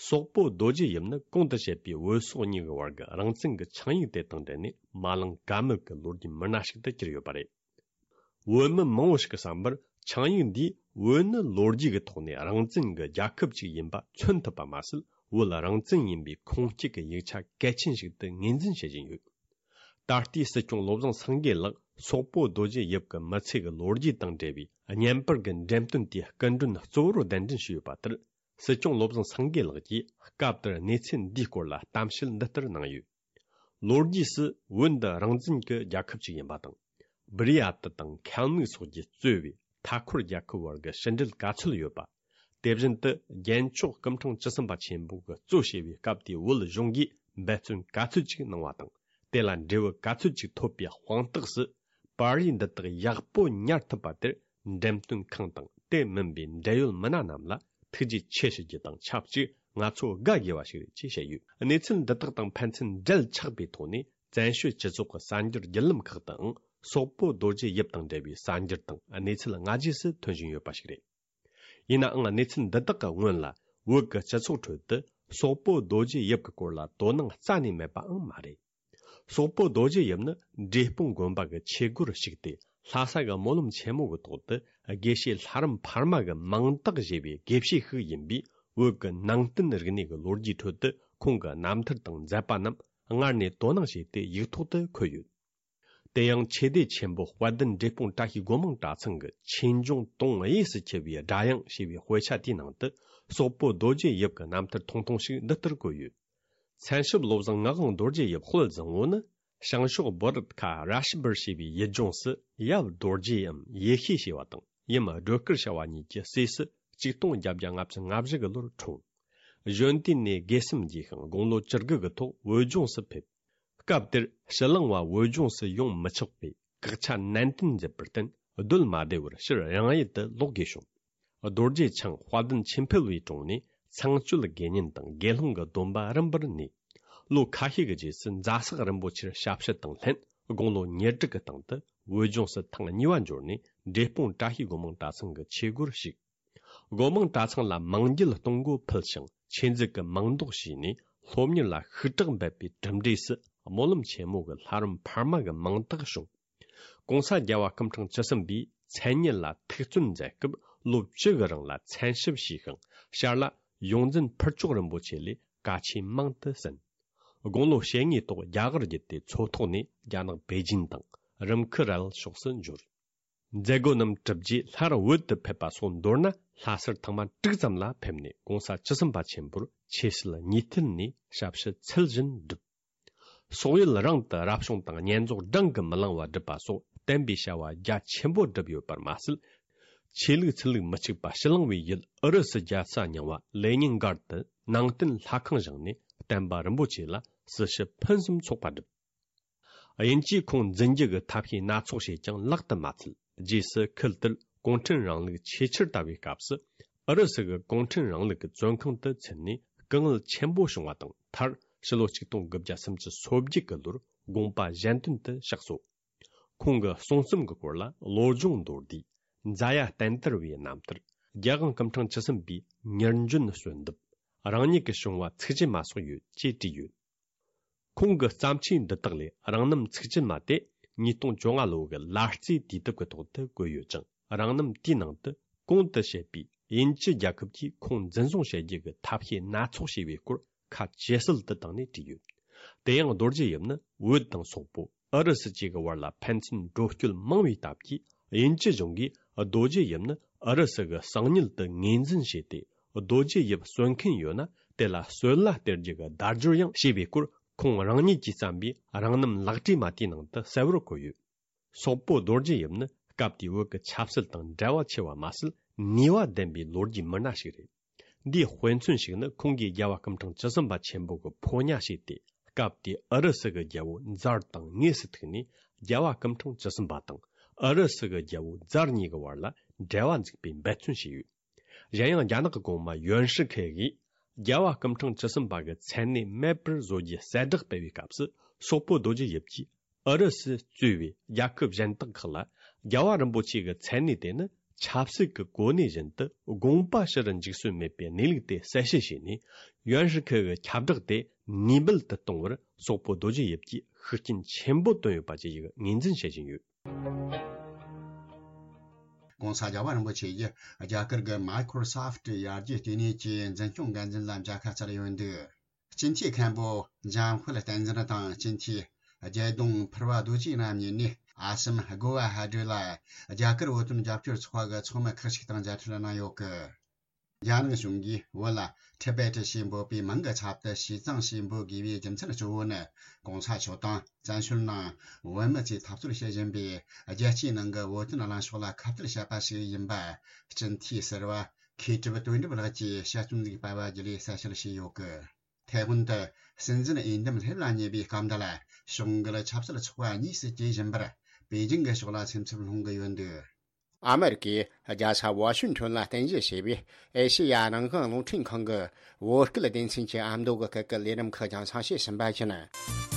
སོག་པོ་རྡོ་རྗེ་ཡིབ་ནི་གོང་དུ་བཤད་པའི་བོད་སོག་གཉིས་ཀྱི་བར་གྱི་རང་བཙན་གྱི་ཆིངས་ཡིག་དེ་དང་འབྲེལ་ནས་མ་ལངས་ཀ་མེད་ཀྱི་ལོ་རྒྱུས་མི་སྣ་ཞིག་ཏུ་གྱུར་ཡོད་པ་རེད། བོད་མི་མང་བོ་ཞིག་གི་བསམ་པར་ཆིངས་ཡིག་འདིས་བོད་ནི་ལོ་རྒྱུས་ཀྱི་ཐོག་ནས་རང་བཙན་གྱི་རྒྱལ་ཁབ་ཅིག་ཡིན་པ་མཚོན་ཐུབ་པ་མ་ཟད། བོད་རང་བཙན་ཡིན་པའི་ཁུངས་སྐྱེལ་གྱི་ཡིག་ཆ་གལ་ཆེན་ཞིག་ཏུ་ངོས་འཛིན་བྱེད་བཞིན་ཡོད། ད་ལྟའི་སྲིད་སྐྱོང་བློ་བཟང་སེང་གེ་ལགས་སོག་པོ་རྡོ་རྗེ་ཡིབ་ཀྱི་མི་ཚེ་གི་ལོ་རྒྱུས་དང་འབྲེལ་བའི་བརྙན་པར་གྱི་འགྲེམས་སྟོན་དེའི་སྐུ་མགྲོན་གཙོ་བོར་གདན་འདྲེན་ཞུས་ཡོད་པ་ལྟར། སྲིད་སྐྱོང་བློ་བཟང་སེང་གེ་ལགས་ཀྱིས་སྐབས་དེར་གནས་ཚུལ་འདིའི་སྐོར་ལ་གཏམ་བཤད་འདི་ལྟར་གནང་ཡོད། ལོ་རྒྱུས་སུ་བོད་འདི་རང་བཙན་གྱི་རྒྱལ་ཁབ་ཅིག་ཡིན་པ་དང་། སྦི་རི་ཡ་ཏི་དང་ཁལ་མིག་སོགས་ཀྱིས་གཙོས་པའི་མཐའ་འཁོར་རྒྱལ་ཁབ་བར་གྱི་ཕྱི་འབྲེལ་ག་ཚོད་ཡོད་པ། དེ་བཞིན་དུ་རྒྱལ་མཆོག་སྐུ་ཕྲེང་བཅུ་གསུམ་པ་ཆེན་པོ་གིས་གཙོ་བྱས་པའི་སྐབས་དེའི་བོད་གཞུང་གིས་འབད་བརྩོན་ག་ཚོད་ཅིག་གནང་བ་དང་། དེ་ལ་འབྲས་བུ་ག་ཚོད་ཅིག་ཐོབ་པའི་དཔང་རྟགས་སུ། པར་རིས་འདི་དག་ཡག་པོ་ཉར་ཐུབ་པ་དེར་འགྲེམས་སྟོན་ཁང་དང་དེ་མིན་པའི་འབྲེལ་ཡོད་མི་སྣ་རྣམས་ལ་ཐུགས་རྗེ་ཆེ་ཞུ་རྒྱུ་དང་ཆབས་ཅིག་ང་ཚོ་དགའ་དགོས་པ་ཞིག་རེད་ཅེས་བཤད་ཡོད། གནས་ཚུལ་འདི་དག་དང་ཕན་ཚུན་འབྲེལ་ཆགས་པའི་ཐོག་ནས་བཙན་བྱོལ་སྤྱི་ཚོགས་ཀྱི་གསར་འགྱུར་བརྒྱུད་ལམ་ཁག་ཏུའང་ སོག་པོ་རྡོ་རྗེ་ཡིབ་དང་འབྲེལ་བའི་གསར་འགྱུར་དང་གནས་ཚུལ་སྔ་རྗེས་སུ་ཐོན་བཞིན་ཡོད་པ་ཞིག་རེད། ཡིན་ནའང་གནས་ཚུལ་འདི་དག་གི་སྔོན་ལ་བོད་ཀྱི་སྤྱི་ཚོགས་ཁྲོད་དུ་སོག་པོ་རྡོ་རྗེ་ཡིབ་ཀྱི་སྐོར་ལ་དོ་སྣང་རྩ་ནས་མེད་པའང་མ་རེད། སོག་པོ་རྡོ་རྗེ་ཡིབ་ནི་འབྲས་སྤུངས་དགོན་པ་གི་ཆོས་སྒོར་ཞུགས་ཏེ། ལྷ་ས་གི་སྨོན་ལམ་ཆེན་མོ་གི་ཐོག་ཏུ་དགེ་བཤེས་ལྷ་རམས་འཕར་མ་གི་མིང་བཏགས་བཞེས་པའི་དགེ་བཤེས་ཤིག་ཡིན་པས། བོད་ཀྱི་ནང་བསྟན་རིག་གནས་ཀྱི་ལོ་རྒྱུས་ཁྲོད་དུ་ཁོང་གི་རྣམ་ཐར་དང་མཛད་པ་རྣམས་སྔར་ནས་དོ་སྣང་བྱས་ཏེ་ཡིག་ཐོག་ཏུ་འཁོད་ཡོད། དེ་ཡང་ཆོས་སྡེ་ཆེན་པོ་དཔལ་ལྡན་འབྲས་སྤུངས་བཀྲ་ཤིས་སྒོ་མང་གྲྭ་ཚང་གི་ཆོས་འབྱུང་དུང་དབྱངས་སུ་འཁྱིལ་བའི་སྒྲ་དབྱངས་ཞེས་པའི་དཔེ་ཆ་དེའི་ནང་དུ། སོག་པོ་རྡོ་རྗེ་ཡིབ་ཀྱི་རྣམ་ཐར་ཐུང་ཐུང་ཞིག་འདི་ལྟར་བཀོད་ཡོད། མཚན་ཞབས་བློ་བཟང་ངག་དབང་རྡོ་རྗེ་ཡིབ་དཔལ་བཟང་བོ་ནི། བྱང་ཕྱོགས་བོ་ར་ཏི་ཁ་ར་ཤི་བར་ཞེས་པའི་ཡུལ་ལྗོངས་སུ་ཡབ་རྡོ་རྗེའམ་ཡེ་ཤེས་ཞེས་པ་དང་ཡུམ་སྒྲོལ་དཀར་ཞེས་པ་གཉིས་ཀྱི་སྲས་སུ་ཆིག་སྟོང་བརྒྱད་བརྒྱ་ལྔ་བཅུ་ང་བཞི་གི་ལོར་འཁྲུངས། གཞོན་དུས་ནས་དགེ་སེམས་རྒྱས་ཤིང་དགུང་ལོ་བཅུ་དགུ་གི་ཐོག་བོད་ལྗོངས་སུ་ཕེབས། སྐབས་དེར་ཕྱི་གླིང་བ་བོད་ལྗོངས་སུ་ཡོང་མི་ཆོག་པའི་བཀག་ཆ་ནན་ཏན་མཛད་པར་བརྟེན། སྡོད་མ་བདེ་བར་ཕྱིར་རང་ཡུལ་དུ་ལོག་དགོས་བྱུང་། རྡོ་རྗེ་འཆང་དཔལ་ལྡན་ཆོས་འཕེལ་བའི་དྲུང་ནས་ཚངས་སྤྱོད་དགེ་བསྙེན་དང་དགེ་སློང་གི་སྡོམ་པ་རིམ་པར་ནོས། ལོ་ཁ་ཤས་ཀྱི་རྗེས་སུ་རྫ་སག་རིན་པོ་ཆེར་ཞབས་ཕྱི་དང་ལྷན། དགུང་ལོ་ཉེར་དྲུག་གི་སྟེང་དུ་བོད་ལྗོངས་སུ་ཐེངས་གཉིས་པ་འབྱོར་ནས་འབྲས་སྤུངས་བཀྲ་ཤིས་སྒོ་མང་གྲྭ་ཚང་གི་ཆོས་སྒོར་ཞུགས། སྒོ་མང་གྲྭ་ཚང་ལ་མང་འགྱེད་གཏོང་སྒོ་ཕུལ་ཞིང་ཆོས་མཛད་ཀྱི་མིང་འདོགས་བྱས་ནས། སློབ་གཉེར་ལ་ཤུགས་དྲག་འབད་པའི་གྲུབ་འབྲས་སུ་སྨོན་ལམ་ཆེན་མོ་གི་ལྷ་རམས་འཕར་མ་གི་མིང་རྟགས་བྱུང་། གོང་ས་རྒྱལ་བ་སྐུ་ཕྲེང་བཅུ་གསུམ་པས་མཚན་ཉིད་ལ་ཐུགས་བརྩོན་མཛད་སྐབས། ལོ་བཅུ་གི་རིང་ལ་མཚན་ཞབས་ཞུས་ཤིང་། ཞར་ལ་ཡོངས་འཛིན་ཕུར་ལྕོག་རིན་པོ་ཆེ་ལས་བཀའ་ཆོས་མང་དུ་གསན། དགུང་ལོ་ཞེ་ལྔའི་ཐོག་རྒྱ་གར་བརྒྱུད་དེ་མཚོ་ཐོག་ནས་རྒྱ་ནག་པེ་ཅིན་དང་རིམ་ཁུ་རལ་ཕྱོགས་སུ་འབྱོར། མཛད་སྒོ་རྣམས་གྲུབ་རྗེས་སླར་བོད་དུ་ཕེབས་པ་སོགས་མདོར་ན་ལྷ་སར་ཐེངས་མ་དྲུག་ཙམ་ལ་ཕེབས་ནས། གོང་ས་བཅུ་གསུམ་པ་ཆེན་པོར་ཆོས་སྲིད་གཉིས་ཐད་ནས་ཞབས་ཕྱི་ཚུལ་བཞིན་བསྒྲུབས། སོག་ཡུལ་རང་དུ་རབ་བྱུང་དང་བསྙེན་རྫོགས་བགྲང་གིས་མི་ལང་བ་བསྒྲུབས་པ་སོགས་བསྟན་པའི་བྱ་བ་རྒྱ་ཆེན་པོ་བསྒྲུབས་ཡོད་པར་མ་ཟད། ཆོས་ལུགས་ཚུལ་ལུགས་མི་གཅིག་པ་ཕྱི་གླིང་བའི་ཡུལ་ཨུ་རུ་སུ་རྒྱལ་ས་རྙིང་བ་ལེ་ཉིན་སྒར་དུ་ནང་བསྟན་ལྷ་ཁང་བཞེངས་ནས་བསྟན་པ་རིན་པོ་ཆེ་ལ་སྲི་ཞུ་ཕུན་སུམ་ཚོགས་པ་བསྒྲུབས། དབྱིན་ཇིས་ཁོང་འཛིན་རྒྱུ་གི་ཐབས་ཤེས་སྣ་ཚོགས་བྱས་ཀྱང་ལག་ཏུ་མ་ཚུད། རྗེས་སུ་ཁུལ་དེར་གུང་ཁྲན་རིང་ལུགས་ཆེས་ཆེར་དར་བའི་སྐབས་སུ། ཨུ་རུ་སུ་གི་གུང་ཁྲན་རིང་ལུགས་ཀྱི་བཙོན་ཁང་དུ་ཚུད་ནས་སྐུ་ངལ་ཆེན་པོ་བྱུང་བ་དང་། མཐར་ཕྱི་ལོ་ཆིག་སྟོང་དགུ་བརྒྱ་སུམ་ཅུ་སོ་བརྒྱད་ཀྱི་ལོར་དགོངས་པ་གཞན་དོན་དུ་གཤེགས་སོ། ཁོང་གི་གསུང་རྩོམ་གྱི་སྐོར་ལ་བློ་སྦྱོང་མདོར་བསྡུས། མཛའ་ཡ་བསྟན་དར་བའི་རྣམ་ཐར། རྒྱལ་དབང་སྐུ་ཕྲེང་བཅུ་གསུམ་པའི་མྱུར་འབྱོན་གསོལ་འདེབས། རང་ཉིད་ཀྱི་བྱུང་བ་ཚིག་བཅད་མ་སོགས་ཡོད་ཅེས་བྲིས་ཡོད། ཁོང་གི་བརྩམས་ཆོས་འདི་དག་ལས་རང་རྣམ་ཚིག་བཅད་མ་དེ་ཉིས་སྟོང་བཅོ་ལྔ་ལོ་གི་ལ་རྩེའི་དུས་དེབ་ཀྱི་ཐོག་ཏུ་བཀོད་ཡོད་ཅིང་། རང་རྣམ་དེའི་ནང་དུ་གོང་དུ་བཤད་པའི་དབྱིན་ཇི་རྒྱལ་ཁབ་ཀྱིས་ཁོང་འཛིན་བཟུང་བྱེད་རྒྱུ་གི་ཐབས་ཤེས་སྣ་ཚོགས་བྱས་པའི་སྐོར་ཁ་ཇེ་གསལ་དུ་བཏང་ནས་བྲིས་ཡོད། དེ་ཡང་རྡོ་རྗེ་ཡིབ་ནི་བོད་དང་སོག་པོ། ཨུ་རུ་སུ་བཅས་ཀྱི་བར་ལ་ཕན་ཚུན་འགྲོ་སྐྱོད་མང་བའི་སྟབས་ཀྱིས། དབྱིན་ཇི་གཞུང་གིས་རྡོ་རྗེ་ཡིབ་ནི་ཨུ་རུ་སུ་གི་གསང་ཉུལ་དུ་ངོས་འཛིན་བྱས་ཏེ། རྡོ་རྗེ་ཡིབ་གསོད་མཁན་ཡོད་ན་དེ་ལ་གསོད་གླ་སྟེར་རྒྱུ་གི་བརྡ་སྦྱོར་ཡང་བྱས་པའི་སྐོར། ཁོང་རང་ཉིད་ཀྱིས་བརྩམས་པའི་རང་རྣམ་ལག་བྲིས་མ་དེའི་ནང་དུ་གསལ་བོར་བཀོད་ཡོད། སོག་པོ་རྡོ་རྗེ་ཡིབ་ནི་སྐབས་དེའི་བོད་ཀྱི་ཆབ་སྲིད་དང་འབྲེལ་བ་ཆེ་བ་མ་ཟད། ནུས་པ་ལྡན་པའི་ལོ་རྒྱུས་མི་སྣ་ཞིག་རེད། འདིའི་དཔེ་མཚོན་ཞིག་ནི། ཁོང་གིས་རྒྱལ་བ་སྐུ་ཕྲེང་བཅུ་གསུམ་པ་ཆེན་པོ་གི་ཕོ་ཉ་བྱས་ཏེ། སྐབས་དེའི་ཨུ་རུ་སུ་གི་རྒྱལ་པོ་ཛར་དང་དངོས་སུ་ཐུག་ནས། རྒྱལ་བ་སྐུ་ཕྲེང་བཅུ་གསུམ་པ་དང་ཨུ་རུ་སུ་གི་རྒྱལ་པོ་ཛར་གཉིས་ཀྱི་བར་ལ་འབྲེལ་བ་འཛུགས་པའི་འབད་བརྩོན་བྱས་ཡོད། གཞན་ཡང་རྒྱ་ནག་གི་གོང་མ་ཡོན་ཧྲི་ཁེ་གིས་རྒྱལ་བ་སྐུ་ཕྲེང་བཅུ་གསུམ་པ་གི་མཚན་གནས་མེད་པར་བཟོ་རྒྱུའི་གསལ་བསྒྲགས་སྤེལ་བའི་སྐབས་སུ། སོག་པོ་རྡོ་རྗེ་ཡིབ་ཀྱིས་ཨུ་རུ་སུས་གཙོས་པའི་རྒྱལ་ཁབ་གཞན་དག་ཁག་ལ། རྒྱལ་བ་རིན་པོ་ཆེ་གི་མཚན་གནས་དེ་ནི་ཆབ་སྲིད་ཀྱི་གོ་གནས་བཞིན་དུ་དགོངས་པ་ཞུ་རུ་འཇུག་སྲོལ་མེད་པའི་གནས་ལུགས་དེ་གསལ་བཤད་བྱས་ནས། ཡོན་ཧྲི་ཁེ་གི་ཁྱབ་བསྒྲགས་དེ་ནུས་མེད་དུ་གཏོང་བར་སོག་པོ་རྡོ་རྗེ་ཡིབ་ཀྱིས་ཤུགས་རྐྱེན་ཆེན་པོ་བཏོན་ཡོད་པ་བཅས་ཀྱི་ངོས་འཛིན་བྱེད་བཞིན་ཡོད། ༸གོང་ས་རྒྱལ་བ་རིན་པོ་ཆེ་ཡིས་རྒྱ་གར་གྱི་Microsoft ཡར་རྒྱས་ལྟེ་གནས་ཀྱི་འཛིན་སྐྱོང་འགན་འཛིན་ལ་མཇལ་ཁ་བསྩལ་ཡོད་འདུག་སྤྱི་འཐུས་མཁན་པོ་འཇམ་དཔལ་བསྟན་འཛིན་དང་སྤྱི་འཐུས་རྒྱལ་ལྡོང་ཕུར་བ་རྡོ་རྗེ་རྣམ་གཉིས་ནས་ཨ་སམ་གོ་བ་ཧ་ཌི་ལ་རྒྱ་གར་བོད་དོན་རྒྱབ་སྐྱོར་ཚོགས་པ་གི་ཚོགས་མི་ཁག་ཅིག་དང་མཇལ་འཕྲད་གནང་ཡོད་གི། རྒྱ་ནག་གཞུང་གིས་བོད་ལ་ཊི་བེ་ཊི་ཞེས་འབོད་པའི་མིང་གི་ཚབ་ཏུ་ཞི་ཙང་ཞེས་འབོད་དགོས་པའི་རྒྱུ་མཚན་གཙོ་བོ་ནི། ༸གོང་ས་མཆོག་དང་བཙན་བྱོལ་ནང་བོད་མི་ཚོས་འཐབ་རྩོད་བྱེད་བཞིན་པའི་རྒྱལ་སྤྱིའི་ནང་གི་བོད་དོན་གླེང་ཕྱོགས་ལ་ཁ་གཏད་བྱེད་པ་ཞིག་ཡིན་པ། སྤྱི་འཐུས་ཟུར་པ་མཁས་གྲུབ་དོན་གྲུབ་ལགས་ཀྱིས་དཔྱད་རྩོམ་ཞིག་སྤེལ་བ་བརྒྱུད་ལས་གསལ་བཤད་བྱས་ཡོད་གི། དེ་སྔོན་དུ་སྲིད་འཛིན་འོས་འདེམས་སླེབས་ལ་ཉེ་བའི་སྐབས་འདི་ལ་ཕྱོགས་འགལ་ཆབ་སྲིད་ཚོགས་པ་གཉིས་སུ་གྱེས་བཞིན་པར་པེ་ཅིང་གི་ཕྱོགས་ལ་སེམས་འཚབ་སློང་གི་ཡོད་འདུག་ཨ་མེ་རི་ཀའི་རྒྱལ་ས་ཝ་ཤིང་ཊོན་ལ་རྟེན་གཞི་བྱས་པའི་ཨེ་ཤེ་ཡ་རང་དབང་རླུང་འཕྲིན་ཁང་གི་བོད་སྐད་སྡེ་ཚན་གྱི་ཨ་མདོ་གི་སྐད་ཀྱི་ལས་རིམ་ཁག་རྒྱང་སྲིང་བྱས་ཟིན་པ་ཡིན།